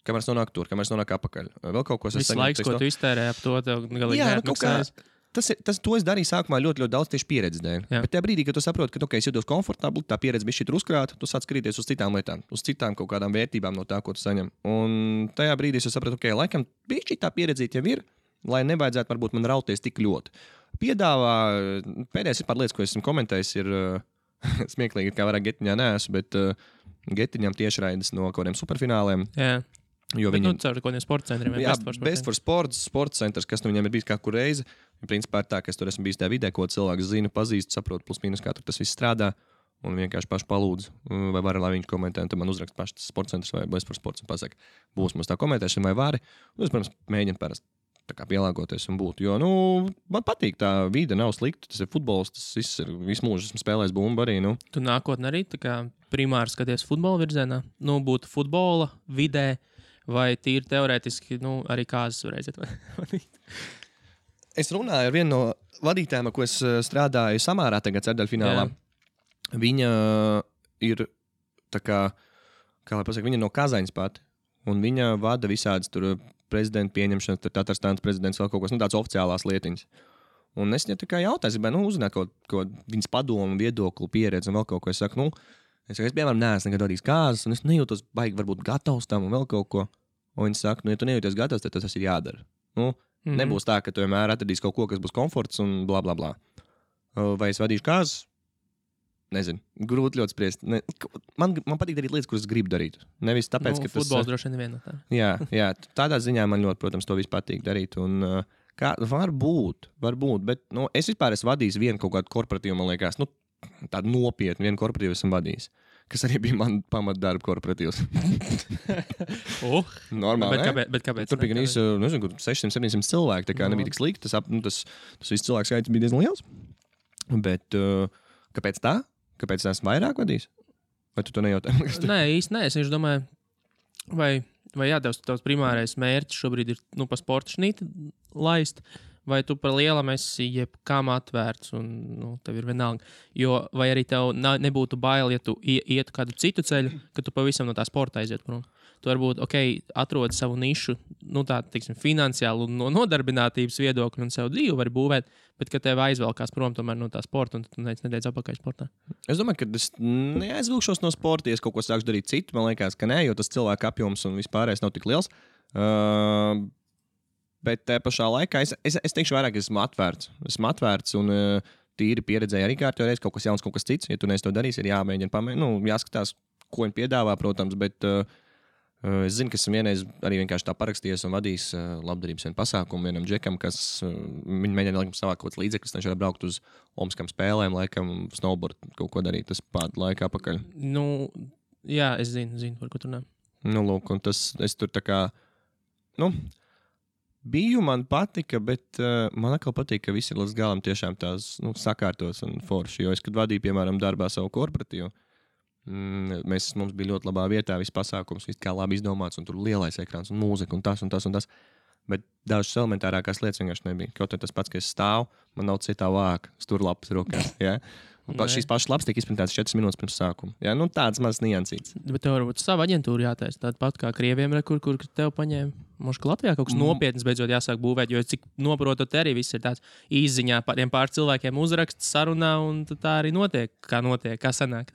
Kamēr es nonāku tur, kamēr es nonāku apakaļ. Vēl kaut ko es saņemu. Viss laiks, ko tu iztērēji ap to, tev galīgi neatmaksājas. To es darīju sākumā ļoti daudz tieši pieredzes dēļ. Bet tajā brīdī, kad tu saproti, ka es jūtos komfortabli, tā pieredze bija šī uzkrāta, tu sāc skatīties uz citām lietām, uz citām kaut kādām vērtībām no tā, ko tu saņem. Un tajā brīdī es sapratu, ka laikam bija šī tā pieredze jau ir, lai nevajadzētu varbūt man rauties tik ļoti. Piedāvā pēdējais ir par lietas, ko esmu komentējis, ir smieklīgi, kā vairāk Getiņā neesmu, bet Getiņam tiešraides no kaut kādiem superfināliem. Jā. Jo viņam caur kaut kādiem sporta centriem. Jā, Best for Sports, sports centrs, kas viņam ir bijis kā kur reizi. Principā ir tā, ka es tur esmu bijis tajā vidē, ko cilvēks zina, pazīst, saprot, plus mīnus, kā tur tas viss strādā. Un vienkārši paši palūdzu, vai var, lai viņš komentē, un tad man uzrakst paši tas sporta centrs vai Best for Sports un pasaka, būs mums tā komentēšana vai vari. Es, protams, mēģinu parasti tā kā pielāgoties un būt. Jo, man patīk tā vide, nav slikta. Tas ir futbols, tas viss ir visu mūžu. Esmu spēlējis bumbu arī. Tu nākotnē arī tā kā primāri skaties futbola virzienā? Būtu futbola vidē vai tīri teorētiski, arī kāzas varēsiet vadīt? Es runāju ar vienu no vadītājiem, ko es strādāju Samārā tagad ceturdaļfinālā. Viņa ir tā kā lai pasaka, viņa no Kazaņas pati. Un viņa vada visādas tur prezidenta pieņemšanas, tad Tatārstānas prezidents vēl kaut kas, tāds oficiālās lietiņas. Un es viņai tā kā jautāju, gribēju, uzzināt kaut viņas padomu, viedokli, pieredzi un vēl kaut ko. Es saku, es piemēram, neesmu nekad vadījis kāzas, un es nejūtos baigi varbūt gatavs tam un vēl kaut ko. Un viņi saka, ja tu nejūties gatavs, tad tas ir jādara. Nebūs tā, ka tu vienmēr atradīsi kaut ko, kas būs komforts un bla, bla, bla. Vai es vadīšu kāzas? Nezinu, grūti ļoti spriest. Man patīk darīt lietas, kuras gribu darīt. Nevis tāpēc, ka futbols droši vien neviena no tā. Jā, tādā ziņā man ļoti, protams, to viss patīk darīt. Un, varbūt, bet es vispār esmu vadījis vienu kaut kādu korporatīvu, man liekas, tādu nopietnu vienu korporatīvu esmu vadījis. Kas arī bija man pamatdarba korporatīvs. Normāli, bet kāpēc? Tur bija gan īsi, 600-700 cilvēki, tā kā nebija tik slikti. Tas viss cilvēks skaits bija diezgan liels. Bet kāpēc tā? Kāpēc es esmu vairāk vadījis? Vai tu to nejautā? Nē, īsti nē. Es domāju, vai vai jā, tavs primārais mērķis šobrīd ir pa sporta šnīti laist, vai tu par lielam esi jebkam atvērts un tev ir vienalga. Jo vai arī tev nebūtu bail, ja tu ietu kādu citu ceļu, ka tu pavisam no tā sporta aiziet prom. Tu varbūt, atrodi savu nišu, tā, teiksim, finansiālu un no nodarbinātības viedokļu un sev dzīvi var būvēt, bet ka tev aizvelkās prom tomēr no tā sporta un tu nedēļ atpakaļ sportā. Es domāju, ka es neaizvilkšos no sporta, ja es kaut ko sākšu darīt citu. Man liekas, ka nē, jo tas cilvēku apjoms un vispārējais nav tik liels. Bet te pašā laikā es teikšu vairāk, esmu atvērts. Esmu atvērts un tīri pieredzēju arī kārtībā reiz kaut kas jauns, kaut kas cits. Ja tu neesi to darījis, ir jāmēģina jāskatās, ko viņi piedāvā, protams, bet es zinu, ka esmu vienreiz arī vienkārši tā parakstījies un vadījis labdarības pasākumu vienam džekam, kas viņi mēģina savākt kaut kāds līdzeklis, viņš var braukt uz Olimpiskām spēlēm, laikam, snowboard kaut ko darīt, tas pār laikā apakaļ. Jā, es zinu, par ko tu runā. Lūk, un tas, es tur tā kā, biju, man patika, bet man atkal patīk, ka viss ir līdz galam tiešām tās sakārtos un forši, jo es, kad vadīju, piemēram, darbā savu korporatīvu, mums bija ļoti labā vietā, viss pasākums, viss kā labi izdomāts, un tur lielais ekrāns, un mūzika, un tas. Bet dažas elementārākās lietas vienkārši nebija. Kaut arī tas pats, ka es stāvu, man nav citā vāka, sturlapas rokās. Ja? Un šīs pašas lapas tiek izprintētas 4 minūtes pirms sākuma. Ja? Tāds mazs niansīts. Bet tev varbūt sava aģentūra jātaisa. Tāda pat kā Krieviem, kur tev paņēma. Možda, ka Latvijā kaut kas nopietns beidzot jāsāk būvēt, jo cik noprotot, arī viss ir tāds īziņā pār cilvēkiem uzraksts, sarunā, un tā arī notiek, kā sanāk.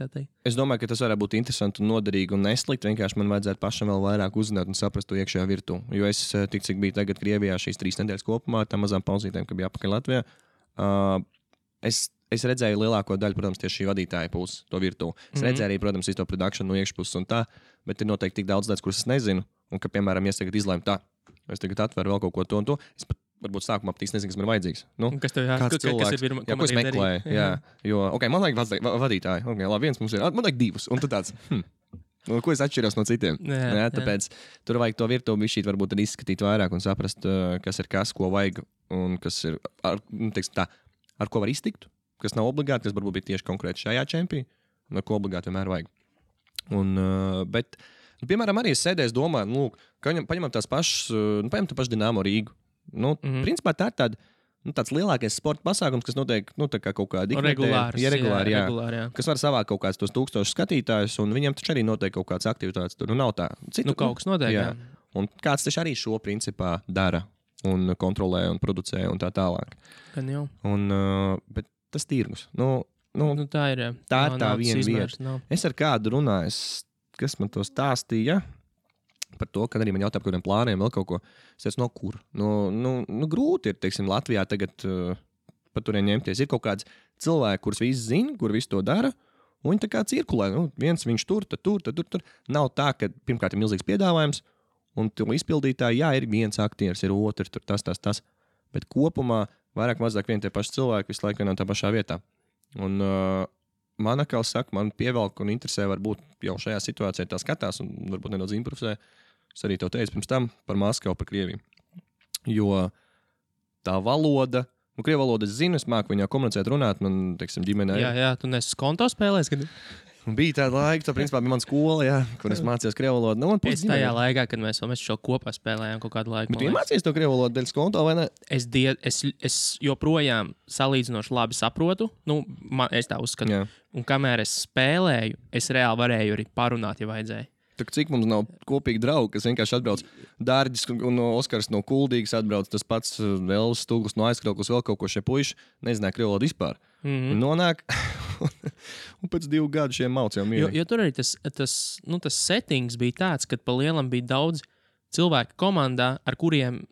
Es domāju, ka tas varētu būt interesanti un noderīgi un neslikt. Vienkārši man vajadzētu pašam vēl vairāk uzzināt un saprast to iekšējā virtuvi. Jo es tik cik biju tagad Krievijā šīs 3 nedēļas kopumā, tā mazām pauzītēm, ka bija apakaļ Latvijā. Es redzēju lielāko daļu, protams, tieši šī vadītāja puses, to virtuvi. Es redzēju arī, protams, visu to produkciju no iekšpuses un tā, bet ir noteikti tik daudz lietas, kuras es nezinu. Un ka, piemēram, ja es tagad izlēmu tā, es tagad atveru vēl kaut ko to un to, es pat varbūt sākumā pat nezinu, kas man ir vajadzīgs. Kas tev jāsaka? Ko es meklēju? Jā. Jo, man vajag vadītāju. Labi, viens mums ir, man vajag 2. Un tu tāds, ko es atšķiros no citiem? Jā, tāpēc tur vajag to virtuvi šī varbūt izskatīt vairāk un saprast, kas ir kas, ko vajag un kas ir, ar ko var iztikt. Kas nav obligāti, kas varbūt bija tieši konkrēti šajā čempionā, un ar ko obligāti vienmēr vajag. Bet, piemēram, arī es sēdēju, domāju, ka paņemam tās pašas, paņemam tā pašu Dinamo Rīgu. Principā tā ir tāds lielākais sporta pasākums, kas notiek kā kaut kāda regulāri, kas var savākt kaut kādus tos 1000 skatītājus, un viņiem taču arī notiek kaut kādas aktivitātes. Tur nav tā. Kaut kas notiek, jā. Un kāds taču arī šo principā dara un kontrolē un producē un tā tālāk. Gan jau. Bet tas tirgus. Tā ir tā viena vieta. Es ar kādu runāju, kas man to stāstīja par to, kad arī man jautāja par kādiem plāniem, vēl kaut ko. Es teicu, no kur? Grūti ir, teiksim, Latvijā tagad par turien ņemties. Ir kaut kāds cilvēki, kurus visi zina, kur visi to dara, un viņi tā kā cirkulē. Viens viņš tur. Nav tā, ka pirmkārt ir milzīgs piedāvājums, un to izpildītāji, jā, ir viens aktieris, ir otrs, tur tas. Bet kopumā vairāk mazāk vien tie paši cilvēki visu laiku vienā tā pašā vietā. Un man atkal saka, man pievelk un interesē varbūt jau šajā situācijā tā skatās un varbūt nedaudz improvisē. Es arī to teicu pirms tam par Maskavu, par Krieviju. Jo tā valoda, Krievu valodu es zinu, es māku viņā komunicēt, runāt, man, teiksim, ģimenē. Jā, tu nesi konto spēlēs, kad... Bija tāda laika, tā principā bija mana skola, jā, kur es mācījos krievu valodu. Es tajā laikā, kad mēs šo kopā spēlējām kaut kādu laiku. Bet tu iemācījies to krievu valodu dēļ konto, vai ne? Es joprojām salīdzinoši labi saprotu, es tā uzskatu. Jā. Un kamēr es spēlēju, es reāli varēju arī parunāt, ja vajadzēja. Cik mums nav kopīgi draugi, kas vienkārši atbrauc Dārģis un Oskars no Kuldīgas atbrauc, tas pats Vēls Stūglis no Aizkrauklis, vēl kaut ko šie puiši nezināja krievu valodu vispār. Nonāk, un pēc 2 gadu šiem mauc jau mīļi. Jo tur arī tas settings bija tāds, ka pa lielam bija daudz cilvēku komandā, ar kuriem,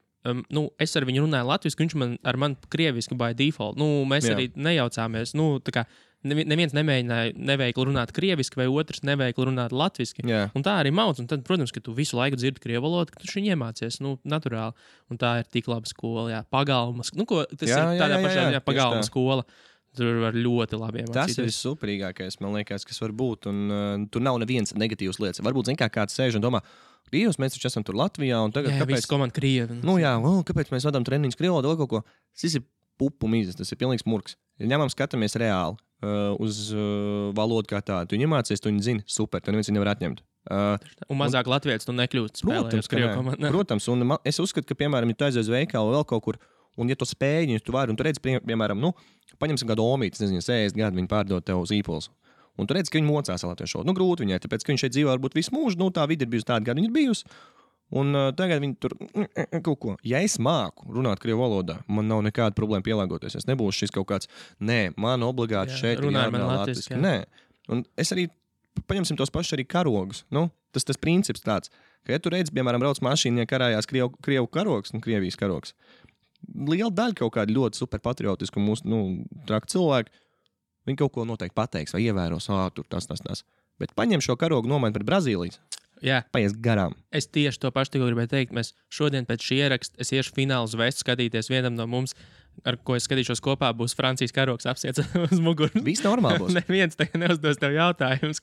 es ar viņu runāju latviski, viņš ar mani krieviski by default. Mēs arī nejaucāmies, tā kā neviens nemēģināja neveikli runāt krieviski, vai otrs neveikli runāt latviski. Jā. Un tā arī mauc. Un tad, protams, ka tu visu laiku dzirdi krievu valodu, ka tu šī iemācies, naturāli. Un tā ir tik laba skola, jā. Pagalmas. Tas ir tādā pašā pagalma skola. Tur var ļoti labi iemācīties. Tas ir superīgākais, man liekas, kas var būt. Un tur nav nevienas negatīvas lietas. Varbūt, kāds sēž un domā, Dievs, mēs taču esam tur Latvijā. Un tagad, kāpēc komanda Krievi? Kāpēc mēs vadām treniņus krievu valodu vai kaut ko? Tas ir pupu mīzes, tas ir pilnīgs murks. Ja ņemam, skatāmies reāli uz valodu kā tādu. Tu iemācies, tu viņu zini, super, tu neviens viņu nevar atņemt. Un mazāk latvietis tu nekļūst spēlējot Krievu komandā. Protams, un es uzskatu, ka, piemēram, ja tu aizies uz veikalu vēl kaut kur, un ja tu spēj, ja tu vari, un tu redz, piemēram, paņemsim kādu omīti, nezinu, 60 gadu viņi pārdod tev uz īpols. Un tu redz, ka viņi mocās latviešu. Grūti viņai, tāpēc, ka viņš šeit dzīvo varbūt visu mūžu, tā vidi ir bijusi tāda, kāda viņa ir bijusi. Un tagad viņi tur kaut ko. Ja es māku runāt krievu valodā, man nav nekāda problēma pielāgoties. Es nebūšu šis kaut kāds, man obligāti šeit ir jārunā latviski. Nē. Un es arī, paņemsim tos pašus arī karogus. Tas princips tāds, ka, ja tu redzi, piemēram, brauc mašīnā, karājās krievu karogs un Krievijas karogs, liela daļa kaut kāda ļoti superpatriotiska un mūsu, traki cilvēki, viņi kaut ko noteikti pateiks vai ievēros, tur tas. Bet paņem šo karogu nomaini pret Brazīlijas. Jā. Paies garām. Es tieši to pašu tikko gribēju teikt. Mēs šodien pēc šī ieraksta es iešu finālu uz vestu skatīties vienam no mums, ar ko es skatīšos kopā, būs Francijas karogs apsiets uz muguras. Viss normāli būs. Neviens tagad neuzdos tev jautājumus.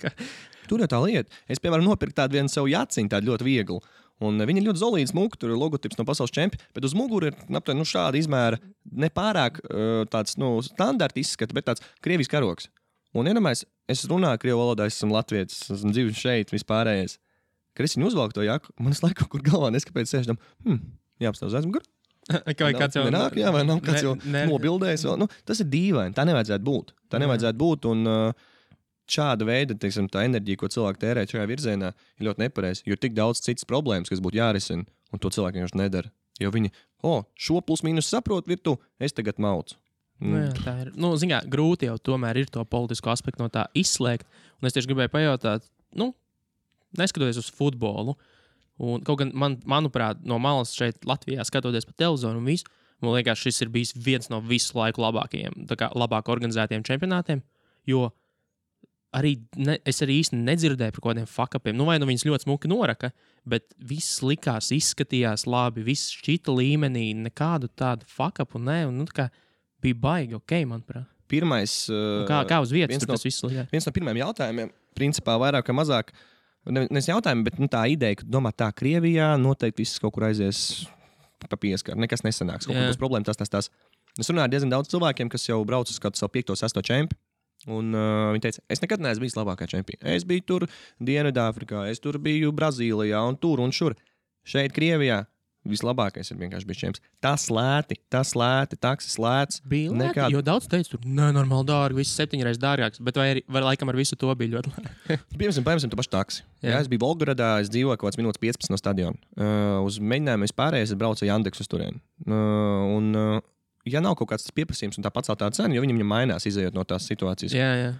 Tur ir tā lieta. Es, piemēram, nopirku tādu vienu savu jaciņu, tādu ļoti vieglu. Un viņi ir ļoti zolīti smuki, tur ir logotips no pasaules čempiona, bet uz muguras ir šāda izmēra, nepārāk tāds standarta izskata, bet tāds Krievijas karogs. Un iedomājies, es runāju krievu valodā, es esmu latvietis, esmu dzīvojis šeit, vispārējais. Kad es viņu uzvalku to jaku, man es laiku kaut kur galvā neskapēc sēžam, jāapstāv uz aizmuguru. Vai kāds jau nenāk, jā, vai nav kāds jau nobildējis vēl. Tas ir dīvaini, tā nevajadzētu būt. Un šāda veida, teiksim, tā enerģija, ko cilvēki tērē šajā virzienā, ir ļoti nepareizi. Jo ir tik daudz citas problēmas, kas būtu jārisina, un to cilvēki vienkārši nedara. Jo viņi, šo plus mīnus saprot virtu, es tagad maucu. Jā, tā ir. Ziņā, grūti jau tomēr ir to politisko aspektu no tā izslēgt. Un es tieši gribēju pajautāt, neskatoties uz futbolu, un kaut gan, manuprāt, no malas šeit Latvijā skatoties pa televizoru un visu, man liekas, šis ir bijis viens no visu laiku labākajiem, labāk organizētiem čempionātiem, jo es arī īsti nedzirdēju par kaut kādiem fuck-upiem. Vai viņas ļoti smuki noraka, bet viss likās, izskatījās labi, viss šķita līmenī, nekādu tādu fuck-upu, bija baigi, manuprāt. Pirmais, kā uz vietas tur tas viss likās? Viens no pirmajiem jautājumiem, principā vairāk vai mazāk, nevis jautājumi, bet tā ideja, ka domā tā Krievijā noteikti viss kaut kur aizies pa pieskaru, nekas nesanāks, kaut kur būs problēma, tas. Es runāju ar diezgan daudz cilvēkiem, kas jau brauc uz kādu savu 5. 6. čempi, un viņi teica, es nekad neesmu bijis labākā čempiona. Es biju tur Dienvidāfrikā, es tur biju Brazīlijā un tur un šur. Šeit Krievijā vislabākais ir vienkārši bijis čempions. Tas lēti, taksis lēts. Bija lēti, jo daudz teica, tur nenormāli dārgi, viss 7 reizes dārgāks, bet vai laikam ar visu to bija ļoti lēti. Piemēram, tu paši taksi. Jā, es biju Volgogradā, es dzīvoju kaut kāds minūtes 15 no stadiona. Uz mēģinājumu vispārējais es braucu Jandeks uz turieni. Ja nav kaut kāds pieprasījums un tā paceltā cena, jo viņam mainās, izējot no tās situācijas. Jā.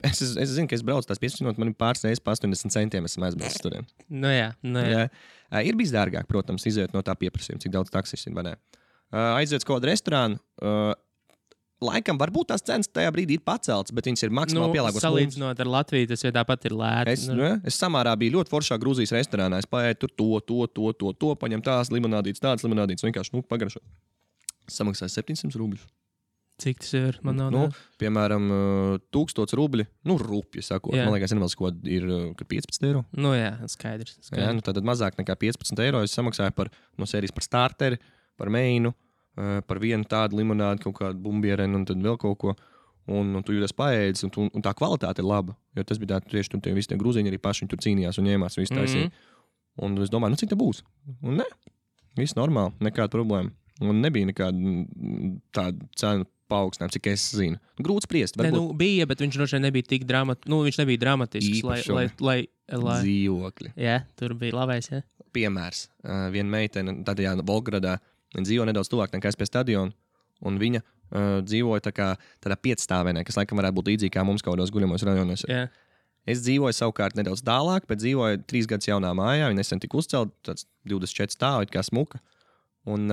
Es zinu, ka es braucu tās 15 minūtes, man ir pāris reizes pa 80 centiem, esmu aizbraucis tur. Jā. Ir bijis dārgāk, protams, izējot no tā pieprasījuma, cik daudz taksis ir. Aiziet uz kādu restorānu, laikam varbūt tās cenas tajā brīdī ir paceltas, bet viņas ir maksimāli pielāgotas. Salīdzinot ar Latviju, tas tāpat ir lēti. Es Samārā biju ļoti foršā Grūzijas restorānā, es paēju tur to, paņem tādas limonādītes, vienkārši pagaršot. Samaksāju 700 rubļus. Cik tas ir? Man nav. Piemēram, 1000 rubļi. Rupji sakot. Man liekas, ko ir 15 eiro. Jā, skaidrs. Jā, tad mazāk nekā 15 eiro es samaksāju no sērijas par starteri, par meinu, par vienu tādu limonādi, kaut kādu bumbierenu un tad vēl kaut ko. Un tu jūties paēdis, un tā kvalitāte ir laba. Jo tas bija tieši tur visi tie grūziņi arī paši tur cīnījās un ņēmās visu taisīja. Un es domāju, cik tā būs? Un ne, viss normāli, nekāda problēma. Un nebija nekāda tāda cena paaugstinājuma, cik es zinu. Grūti spriest. Bija, bet viņš droši vien nebija tik viņš nebija dramatisks, lai dzīvokļi. Jā, tur bija labais, jā. Piemērs. Viena meitene, tādā Volgogradā, viņa dzīvo nedaudz tuvāk nekā es pie stadiona, un viņa dzīvoja tādā 5-stāvēnē, kas laikam varētu būt līdzīgi kā mums kaut kādos guļamos rajonos. Jā. Es dzīvoju savukārt nedaudz tālāk, bet dzīvoju 3 gadus jaunā mājā, viņa nesen tika uzcelt, tāds 24 stāvi, kā smuka. Un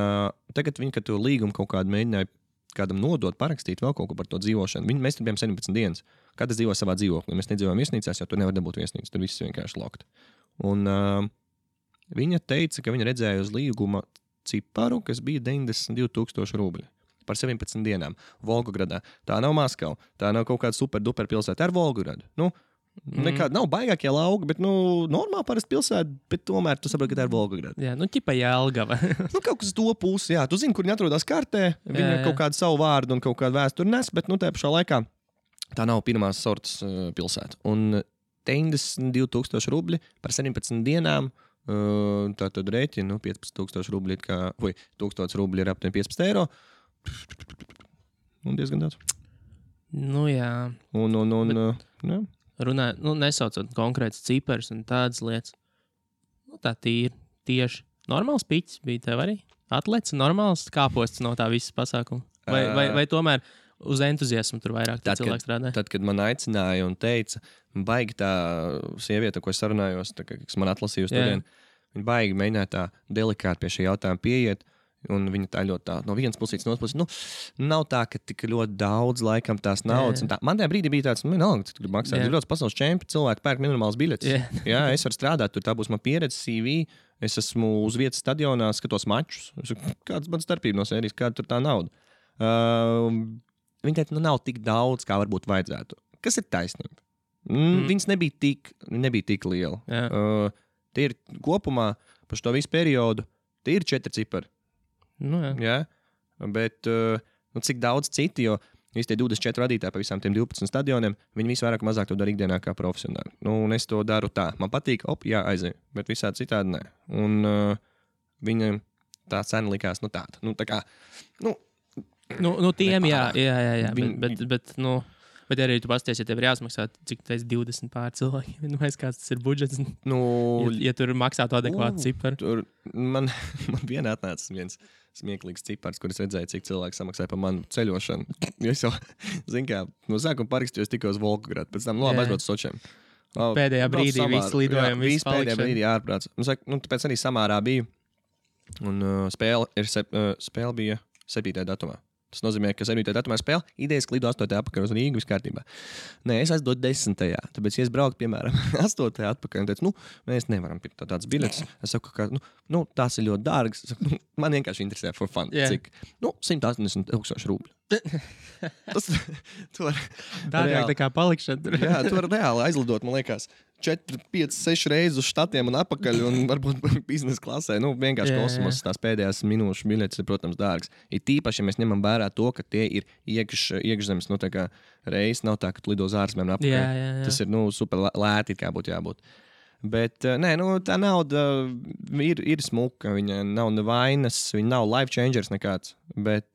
tagad viņi, kad to līgumu kaut kādu mēģināja kādam nodot, parakstīt vēl kaut ko par to dzīvošanu. Mēs tur bijām 17 dienas. Katrs dzīvoja savā dzīvoklī. Mēs nedzīvojam viesnīcās, jo tur nevar dabūt viesnīcas. Tur viss vienkārši lokt. Un viņa teica, ka viņa redzēja uz līguma ciparu, kas bija 92,000 rubļi par 17 dienām Volgogradā. Tā nav Maskava. Tā nav kaut kāda super-duper pilsēta ar Volgogradu. Nekāda nav baigākie lauki, bet normāli parasti pilsēta, bet tomēr tu saproti, ka tā ir Volgograda. Jā, ķipa Jelgava. Kaut kas to pusi, jā. Tu zini, kur viņi atrodas kartē, viņi kaut kādu savu vārdu un kaut kādu vēsturi nes, bet tajā pašā laikā tā nav pirmās sortas pilsēta. Un 92,000 rubļi par 17 dienām. Tā tad rēķina 15,000 rubļi, vai 1,000 rubļi ir aptuveni 15 eiro. Un diezgan daudz. Nu, jā. Jā. Runājot, nesaucot konkrētas ciparas un tādas lietas. Tā tieši normāls piķis bija tev arī? Atlets, normāls kāposts no tā visas pasākuma? Vai tomēr uz entuziasmu tur vairāk cilvēku strādā? Tad, kad man aicināja un teica, baigi tā sieviete, ko es sarunājos, kas man atlasīja uz turien, viņa baigi mēģināja tā delikāti pie šī jautājuma pieiet, un viņa tā ļoti tā, no vienas puses, no otras puses, nav tā, ka tik ļoti daudz laikam tās naudas. Man tajā brīdī bija tāds, cik grib maksāt, ir ļoti pasaules čempi, cilvēki pērk minimāls biļetes. Jā, es varu strādāt, tur tā būs man pieredze, CV, es esmu uz vietas stadionā, skatos mačus, kāds man starpība no sērijas, kāda tur tā nauda. Viņa teica, nav tik daudz, kā varbūt vajadzētu. Kas ir taisnība? Viņas nebija tik liela. Tie ir kopumā par šo visu periodu, tie ir 4 cipari. Jā. Bet cik daudz citi, jo visi tie 24 vadītāji pa visām tiem 12 stadioniem, viņi visi vairāk mazāk to dara ikdienā kā profesionāli. Un es to daru tā. Man patīk, aizēju, bet visādi citādi nē. Un viņam tā cena likās, tāda. Tā kā, tiem, jā. Bet arī tu pasties, ja tev ir jāsmaksā, cik tas ir 20 pār cilvēkiem, kāds tas ir budžets. Ja tur maksātu adekvātu ciparu. Man vienā atnāca viens smieklīgs cipars, kur es redzēju, cik cilvēki samaksāja par manu ceļošanu. Es jau, no sākuma parakstījos tikai uz Volgogradu, pēc tam aizbraucu uz Sočiem. Pēdējā brīdī viss lidojumi, viss palikšana. Pēdējā brīdī ārprāts. Tāpēc arī Samārā biju, un spēle bija 7. datumā. Tas nozīmē, ka 7. datumā spēle idejas lido 8. atpakaļ uz Rīgu viss kārtībā. Nē, es aizdodu 10. Tāpēc, ja es braucu, piemēram, 8. atpakaļ un teicu, mēs nevaram pirkt tādas biļetes. Es saku, ka tās ir ļoti dārgas. Saku, man vienkārši interesē for fun. Cik? 180,000 rubļu. Tas var dārgāk tā kā palikšana. Jā, tu var reāli aizlidot, man liekas, 4, 5, 6 reizes uz štatiem un atpakaļ un varbūt biznesa klasē. Vienkārši kosmos tās pēdējās minūšu biļetes ir, protams, dārgas. Ir tīpaši, ja mēs ņemam vērā to, ka tie ir iekšzemes, reizes nav tā, ka tu lido uz ārzemēm atpakaļ. Jā. Tas ir, super lēti, kā būtu jābūt. Bet, tā nauda ir smuka, viņa nav nevainas, viņa nav life changers nekāds, bet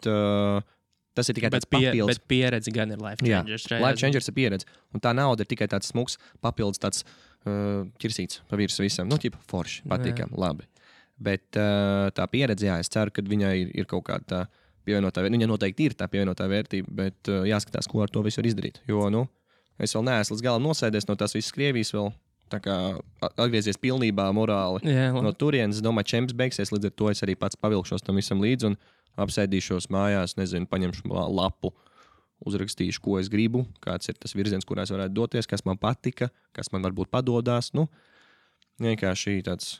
tas ir tikai tāds papildus. Bet pieredze gan ir life changers. Jā, life changers ir pieredze. Un tā nauda ir tikai tāds smuks papildus, tāds ķirsīts pa virs visam. Forši, patīkam, labi. Bet tā pieredze, es ceru, ka viņai ir kaut kāda tā pievienotā vērtība. Viņa noteikti ir tā pievienotā vērtība, bet jāskatās, ko ar to visu var izdarīt. Jo, es vēl neesmu līdz galam nosēdies no tās visas Krievijas vēl. Tā kā atgriezies pilnībā morāli no turienes. Es domāju, čemps beigsies, līdz ar to es arī pats pavilkšos tam visam līdzi un apsēdīšos mājās, paņemšu lapu, uzrakstīšu, ko es gribu, kāds ir tas virziens, kurā es varētu doties, kas man patika, kas man varbūt padodās. Vienkārši tāds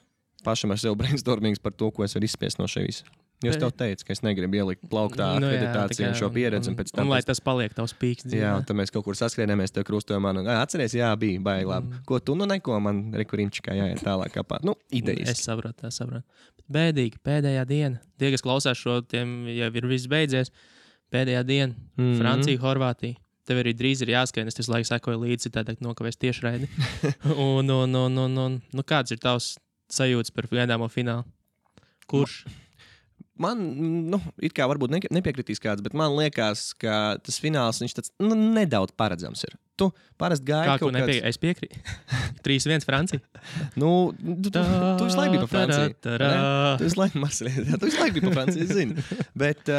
pašam ar sevi brainstormings par to, ko es varu izspiest no šeit. Jo es tev teicu, ka es negribu ielikt plauktā akreditāciju un šo pieredzi. Un lai tas paliek tavs pīks. Jā, tad mēs kaut kur saskrienāmies, tev krustojam man. Atceries, bija baigi labi. Ko tu neko, man rekurimčikā jāiet tālāk kapāt. Idejas. Es saprotu. Bēdīgi, pēdējā diena. Tie, kas klausās šo, tiem jau ir viss beidzies. Pēdējā diena. Francija, Horvātija. Tev arī drīz ir jāskrien, es visu laiku sekoju līdzi, citādi nokavēs tiešraidi. Un kāds ir tavs sajūtas par gaidāmo finālu? Kurš? Man, it kā varbūt nepiekritīs kāds, bet man liekas, ka tas fināls, viņš tāds nedaudz paredzams ir. Tu parasti gaidi kaut kāds... Es piekrītu. 3-1 Francija. Tu visu laiku biji pa Franciju. Tu visu laiku biji pa Franciju, es zinu. Bet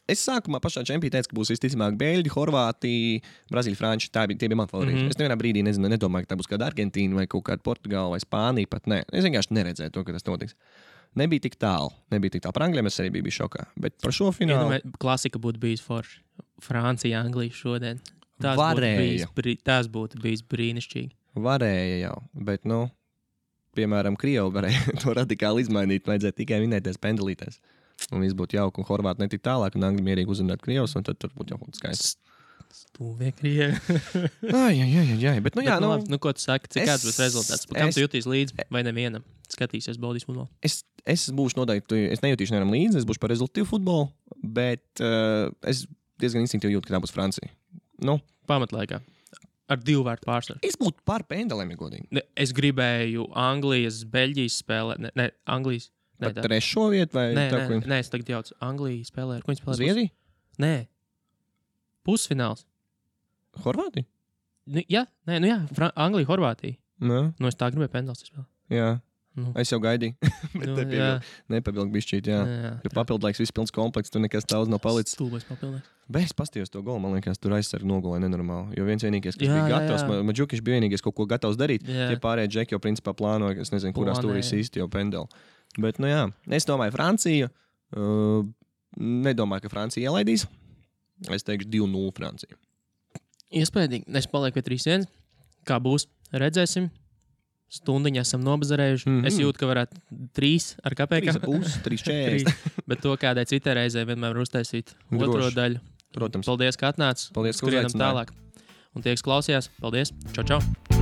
es sākumā pašā čempī teicu, ka būs visticamāk Beļģi, Horvātija, Brazīļa, Frančija. Tie bija mani favorīti. Es nevienā brīdī nedomāju, ka tā būs kāda Argentīna vai kaut kāda Portugāla vai Spānija pat. Nē, es vienkārši neredzēju to, ka tas notiks. Nebija tik tālu. Par Anglijiem es arī biju šokā. Bet par šo finālu... Klasika būtu bijis forši. Francija, Anglija šodien. Tas būtu bijis brīnišķīgi. Varēja jau, bet, piemēram, Krievi varēja to radikāli izmainīt. Vajadzēja tikai vinēties pendelītēs. Un viss būtu jauki, un Horvāti netik tālāk, un Angļi mierīgi uzrunāt Krievus, un tad tur būtu jau kaut kas skaists. Stūvie Krievi. Jā, bet, ko tu saki, kāds būs rezultāts? Kam tu jutīsi līdzi vai nevienam? Skatīsies baudīs futbolu. Es būšu noteikti, es nejutīšu nevienam līdzi, es būšu par rezultātu futbolu, bet es diezgan instinktīvi jūtu, ka tā būs Francija. Pamatlaikā. Ar 2 vārtu pārsvaru. Es būtu par pendelēm, ja godīgi. Es gribēju Anglijas, Beļģijas spēlē. Ne, Anglijas. Par trešo vietu vai Nē, tā, ko nē, es tagad jaucu. Anglija spēlē. Ar ko viņi spēlē? Zviedrija? Nē. Pusfināls. Horvātija? Jā, Anglija, Horvātija. Nē. Es tā gribēju pendels spēlēt. Jā. Nu. Es jau gaidīju. Bet nepabildu bišķīt, jā. Jo papildlaiks viss pilns komplekts, tur nekas daudz nav palicis. Stulbais papildlaiks. Bet es pastījos to golu, man liekas, tur aizsargi nogulēja nenormāli. Jo vienīgais, kas bija gatavs, Maģukiš bija vienīgais kaut ko gatavs darīt. Tie pārējie džeki jau principā plānoja, es nezinu, kurā stūrī īsti jau pendeli. Bet, nu jā, es domāju, Francija. Nedomāju, ka Francija ielaidīs. Es teikšu 2-0 Francija. Iespējams, es palieku pie 3-1. Kā būs, redzēsim. Stundiņā esam nobazarējuši. Es jūtu, ka varētu 3 ar kapēkām. 3,40. Bet to kādai citai reizei vienmēr uztaisīt otro daļu. Protams. Paldies, ka atnāc. Paldies, ka skrienam uzaicināji. tālāk. Un tie, kas klausījās, paldies. Čau, čau.